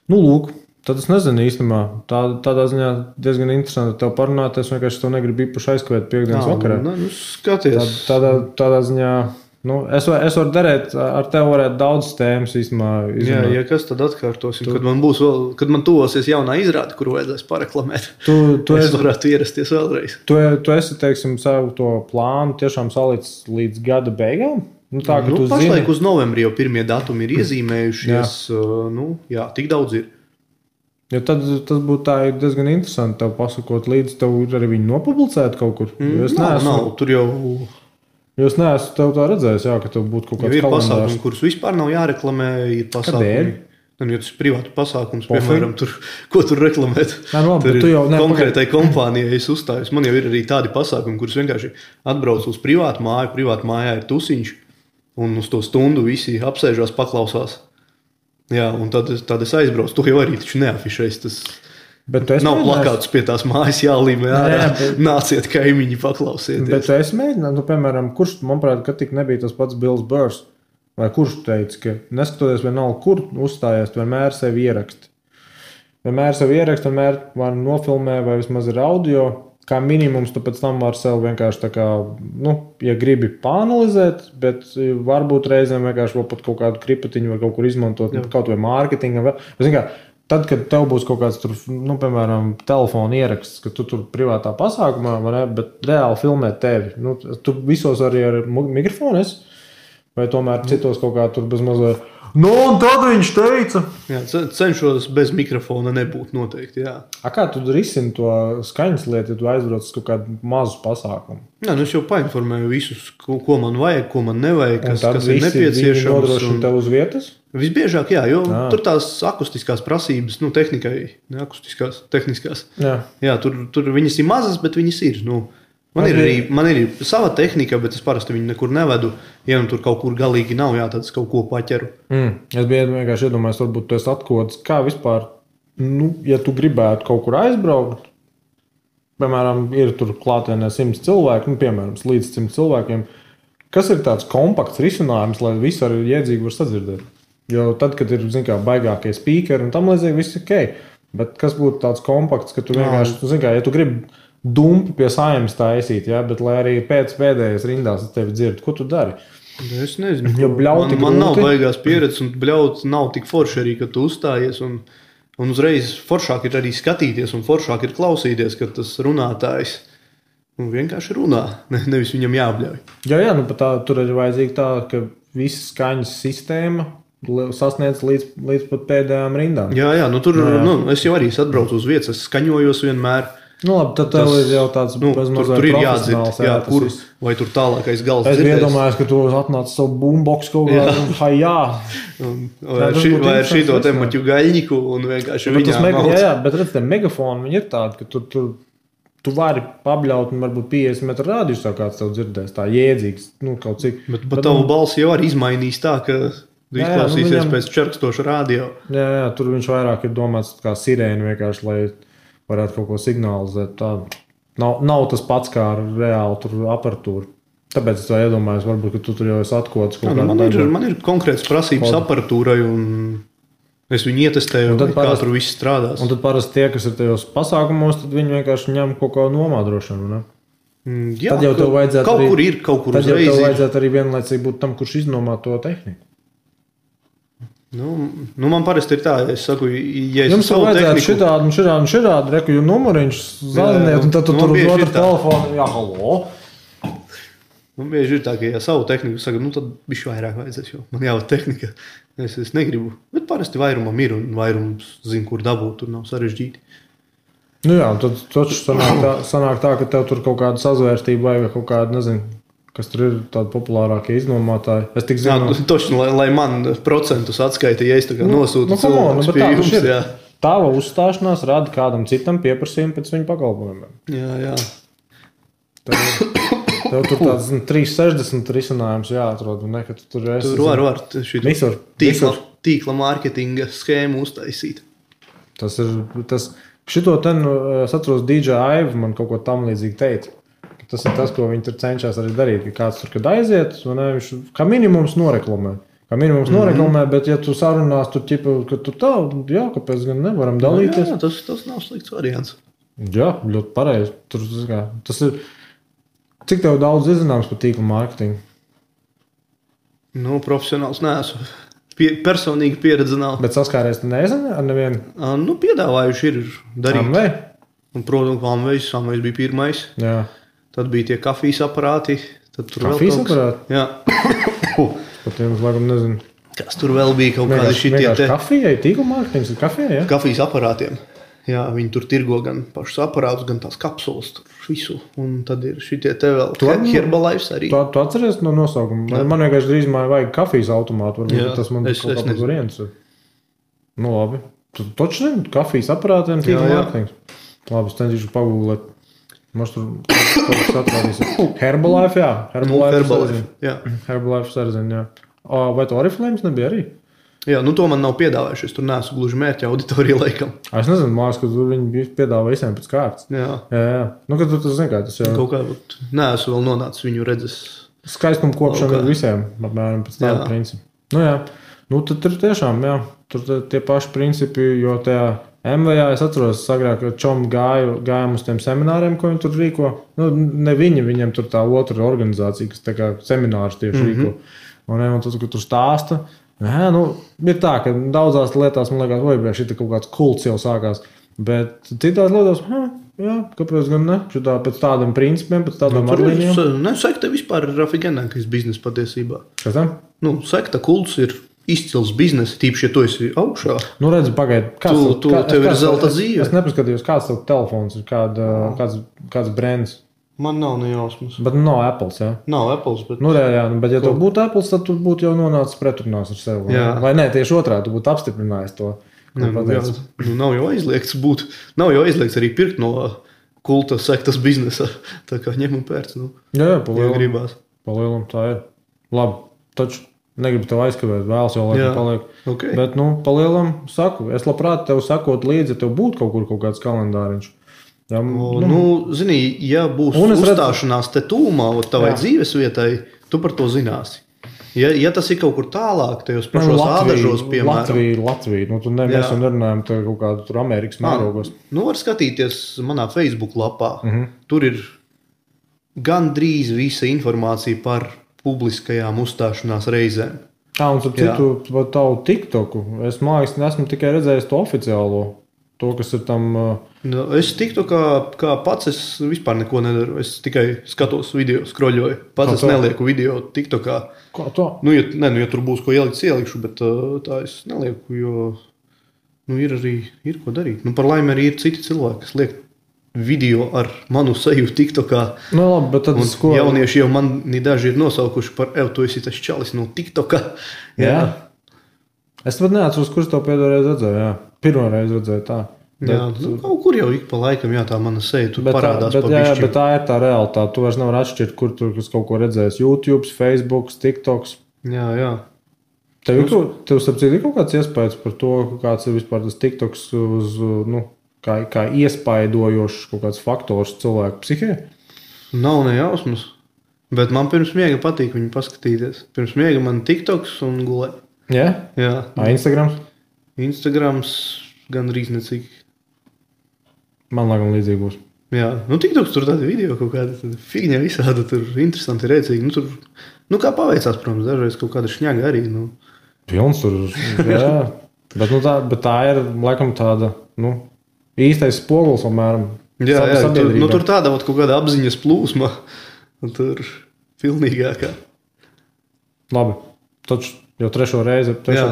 S1: Lūk. Tad es nezinu īstenībā. Tādā ziņā diezgan interesanti tev parunāt. Es vienkārši to negribu īpaši aizskavēt piekdienas vakarā.
S2: Skaties.
S1: Tādā ziņā, es varu darīt, ar tevi varētu daudz tēmas īstenībā.
S2: Jā, kas tad atkārtosim? Kad man tuvosies jaunā izrāde, kuru vajadzēs pareklamēt, es varētu ierasties vēlreiz.
S1: Tu esi, teiksim, savu to plānu tiešām salicis līdz gada beigām?
S2: Pašlaik uz novembri jau pirmie datumi ir iezīmējušies. Jā, tik daudz ir.
S1: Ja tad tas būtu tā diezgan interesanti tev pasakot līdzi, tev arī viņi nopublicēt kaut kur.
S2: Nav, tur jau...
S1: Es neesmu tev tā redzējis, ka tev būtu kaut kāds
S2: kalendārs. Ir pasākumi, kurus vispār nav jāreklamē, ir pasākumi.
S1: Kādēļ?
S2: Ja tas ir privātu pasākums, piemēram, ko tur reklamēt.
S1: Tur
S2: ir konkrētai kompānijai es uzstājos. Man jau ir arī tādi pasākumi, kurus vienkārši atbrauc uz privātu māju, privātu mājā ir tusiņš, un uz to stundu visi apsēžās, paklausās. Jā, un tad es aizbraucu. Tu jau arī taču neafišēs. Tas nav plakāts pie tās mājas jālīmē ārā. Nāciet kaimiņi paklausieties.
S1: Bet tu esi mēģināt, piemēram, kurš, manuprāt, ka tik nebija tas pats Bills Burrs, vai kurš teica, ka neskatoties vienalga, kur uzstājies, tu vienmēr sevi ieraksti. Vienmēr var nofilmē vai vismaz ir audio. Kā minimums, tu pēc tam var sev vienkārši tā kā, ja gribi pāanalizēt, bet varbūt reizēm vienkārši vēl pat kaut kādu kripatiņu var kaut kur izmantot, kaut vai mārketinga. Tad, kad tev būs kaut kāds tur, piemēram, telefona ieraksts, ka tu tur privātā pasākumā, bet reāli filmē tevi. Tu visos arī ar mikrofonu esi, vai tomēr citos kaut kā tur bez mazliet. Un tad viņš teica.
S2: Jā, cenšos bez mikrofona nebūt noteikti, jā.
S1: Kā tu risini to skaņas lietu, ja tu aizbrauc uz kaut kādu mazu pasākumu?
S2: Jā, es jau painformēju visus, ko man vajag, ko man nevajag, kas ir nepieciešams.
S1: Un nodrošina tev uz vietas?
S2: Visbiežāk, jā, jo tur tās akustiskās prasības, tehnikai, ne akustiskās, tehniskās. Jā, tur viņas ir mazas, bet viņas ir, Man ir sava tehnika, bet es parasti viņu nekur nevedu. Ja tur kaut kur galīgi nav, tad es kaut ko paķeru.
S1: Es biju vienkārši iedomājies, varbūt tu esi atkods. Kā vispār, ja tu gribētu kaut kur aizbraukt, piemēram, ir tur klātienē 100 cilvēki, piemēram, līdz 100 cilvēkiem, kas ir tāds kompakts risinājums, lai visi arī iedzīgi var sadzirdēt? Jo tad, kad ir, baigākie speakeri un tam līdzīgi, viss ir ok. Bet kas būtu tāds kompakts, ka tu vienkārši, ja tu gribi dumpi pie Saeimas taisīt, bet lai arī pēc pēdējais rindās tevi dzird, ko tu dari?
S2: Es nezinu.
S1: Man
S2: nav baigās pieredzes, un bļaut nav tik forši arī, kad tu uzstājies, un uzreiz foršāk ir arī skatīties, un foršāk ir klausīties, kad tas runātājs vienkārši runā, nevis viņam jābļauj.
S1: Jā, tur ir vajadzīga tā, ka visa skaņas sistēma sasniedz līdz pat pēdējām rindām.
S2: Jā, es jau arī atbraucu uz vietas, es skaņojos vienmēr.
S1: Labi, tad tev ir jau tāds
S2: tur ir jādzird, kur, vai tur tālākais gals
S1: dzirdēs. Es iedomājos, ka tu atnāc savu boombox kaut kādā,
S2: vai ar šito te maķu gaļņiku un vienkārši viņā mauc.
S1: Jā, bet redz, te megafoni, viņi ir tādi, ka tu vari pabļaut un varbūt 50 metru rādījus jau kāds tev dzirdēs, tā jēdzīgs, kaut cik.
S2: Bet tavu balsi jau arī izmainīs tā, ka izklausīsies pēc čerkstoša radio.
S1: Jā, tur viņš vairāk ir domāts kā sirēni vienkārši, lai varētu kaut ko signalizēt. Tā nav tas pats kā reāli aparatūra. Tāpēc es tā iedomājos, varbūt, ka tu tur jau esi atkods.
S2: Man ir konkrēts prasības aparatūrai, un es viņu ietestēju, kā tur viss strādās.
S1: Un tad parasti tie, kas ir tajos pasākumos, tad viņi vienkārši ņem kaut kā nomādrošanu, ne?
S2: Jā,
S1: tad jau tev vajadzētu
S2: kaut kur
S1: tad jau tev vajadzētu arī vienlaicīgi būt tam, kurš iznomā to tehniku.
S2: Man parasti ir tā, ja es saku, ja es
S1: jums vajadzētu šitādi, reku, jo numuriņš zaziniet, un tad tu tur uz otru telefonu, halo.
S2: Man bieži ir tā, ka, ja savu tehniku saka, nu tad bišķi vairāk vajadzēs, jo man jau tehnika, es negribu. Bet parasti vairumam ir un vairums zina, kur dabūt, tur nav sarežģīti.
S1: Nu jā, tad taču sanāk tā, ka tev tur kaut kāda sazvērstība vai kaut kāda, nezinu, kas tur ir tādi populārākie iznomātāji. Es tik zinu...
S2: Jā, toši, lai man procentus atskaita, ja es tā kā nosūtu cilvēkus pie jums, jā.
S1: Tava uzstāšanās rada kādam citam pieprasījumu pēc viņa pakalpojumiem.
S2: Jā.
S1: Tev tur tāds 360 risinājums jāatrod. Ne, tu tur esi,
S2: var
S1: visur.
S2: Tīkla mārketinga schēmu uztaisīt.
S1: Šito ten, es atceros, DJ Aiva man kaut ko tam līdzīgi teica. Tas ir tas, ko viņi tur cenšas arī darīt. Ka kāds tur, kad aiziet, viņš kā minimums noreklamē. Bet ja tu sarunās, tur ķipa, ka tu tā, jā, kāpēc gan nevaram dalīties.
S2: Jā, tas nav slikts variants.
S1: Jā, ļoti pareizi. Tas ir... Cik tev daudz izzināms par tīkla mārketingu?
S2: Nu, profesionāls neesmu. Personīgi pieredze nav.
S1: Bet saskāries tu nezini ar nevienu?
S2: Nu, piedāvājuši ir darīt.
S1: Amvei?
S2: Un, protams, Amvejs bija pirmais.
S1: Jā.
S2: Tad bija tie kafijas aparāti.
S1: Kafijas aparāti?
S2: Jā.
S1: Par tiem, laikam, nezinu.
S2: Kas tur vēl bija kaut kādi šitie te?
S1: Kafijai, tīkla mārketings ir kafijai, jā?
S2: Kafijas aparātiem. Jā, viņi tur tirgo gan pašus aparātus, gan tās kapsulas, tur visu. Un tad ir šitie te vēl Herbalife arī.
S1: Tu atceries no nosaukuma? Jā. Man vienkārši drīzumā vajag kafijas automātu.
S2: Jā,
S1: tas man kaut kāds variants. Nu, labi. Tu taču zini, kafijas aparātiem tīkla mārketings. Labi, es cenšīšu pagūglēt. Mums tur kaut kas atrādīs. Herbalife, jā. Herbalife sarzina, jā. Vai to Oriflames nebija arī?
S2: Jā, nu to man nav piedāvājuši. Es tur neesmu gluži mērķa auditorija laikam.
S1: Es nezinu, mājas, ka tur viņi piedāvā visiem pēc kārtas.
S2: Jā.
S1: Nu, kad tu zini, kā tas jau...
S2: Kaut kā neesmu vēl nonācis viņu redzes.
S1: Skaistumu kopšana ir visiem, apmēram pēc tāda principa. Nu jā, nu tad tur tiešām, jā, tur tie paši principi, jo tajā MVA es atceros agrāk, ka čom gājām uz tiem semināriem, ko viņi tur rīko. Nu, ne viņiem tur tā otra organizācija, kas tā kā seminārus tieši rīko. Un tad, kad tur stāsta, jā, nu, ir tā, ka daudzās lietās, man liekas, vai šī kaut kāds kults jau sākās, bet citās lietās, jā, kāpēc gan ne? Šitā pēc tādiem principiem, pēc tādām arlīnijām.
S2: Sekta vispār ir rafigenākais biznes patiesībā.
S1: Kas tam?
S2: Nu, sekta kults ir izcils biznes, tīpaši, ja tu esi augšā.
S1: Nu, redzi, pagaidi.
S2: Tev ir zelta dzīve.
S1: Es nepaskatījos, kāds tev telefons ir, kāds brands.
S2: Man nav nejausmas.
S1: Bet nav Apples, jā?
S2: Nav Apples, bet...
S1: Nu, jā, bet ja tev būtu Apples, tad tu būtu jau nonācis pretrunās ar sevi. Jā. Vai ne, tieši otrā, tu būtu apstiprinājis to.
S2: Nav jau aizliegts būt. Nav jau aizliegts arī pirkt no kulta sektas biznesa. Tā kā ņem un pērc. Nu,
S1: jā, palielam tā ir. Labi, taču negribu tev aizkavēt, vēlas jau laikam paliek.
S2: Okay.
S1: Bet, palielam saku. Es labprāt tev sakot līdzi, ja tev būtu kaut kāds kalendāriņš.
S2: Jā, zini, ja būs uzstāšanās te tūmā tavai dzīves vietai, tu par to zināsi. Ja tas ir kaut kur tālāk, tajos pašos ādažos, piemēram.
S1: Latvija. Nu, mēs jau nerunājam te kaut kādu tur Amerikas mērogos.
S2: Nu, var skatīties manā Facebook lapā. Tur ir gandrīz visa informācija par publiskajām uzstāšanās reizēm.
S1: Un tad citu tavu TikToku. Es esmu tikai redzējis to oficiālo. To, kas ir tam...
S2: Es tiktu, kā pats es vispār neko nedaru. Es tikai skatos video, skroļoju. Pats es nelieku video TikTokā.
S1: Kā to?
S2: Ja tur būs ko ielikt, ielikšu, bet tā es nelieku, jo ir ko darīt. Par laimi arī ir citi cilvēki, kas liek video ar manu seju TikTokā.
S1: Nu, labi, bet tad
S2: jaunieši jau mani daži ir nosaukuši par tu esi tas čalis no TikTokā.
S1: Jā. Es pat neatceros, kurš to pēdējoreiz redzēju, jā. Pirmoreiz redzēju tā.
S2: Jā, kaut kur jau ik pa laikam, jā, tā mana seja tur parādās pa bišķi.
S1: Bet tā ir tā realitāte. Tu vairs nevar atšķirt, kur tur kaut ko redzējis. YouTube, Facebook, TikToks.
S2: Jā.
S1: Tev sapcīt ir kaut kāds iespējas par to, kāds ir vispār tas TikToks uz, kā iespaidojošs kaut kāds faktors cilvēku psihē?
S2: Nav nejausmas. Bet man pirms miega patīk viņu paskatīties. Pirms miega man TikToks un gulē.
S1: Jā?
S2: Jā.
S1: Instagrams?
S2: Instagrams gandrīz necik.
S1: Man laikam līdzīgi būs.
S2: Jā, TikToks tur tādi video kaut kāda figņa visāda, tur interesanti, rēcīgi. Tur, kā paveicās, protams, dažreiz kaut kāda šņaga arī.
S1: Pilns tur, jā. bet tā ir, laikam, tāda, īstais spogulis, apmēram.
S2: Jā, tur tāda kaut kāda apziņas plūsma. Tur Pilnīgākā.
S1: Labi. Taču jau trešo reizi.
S2: Jā,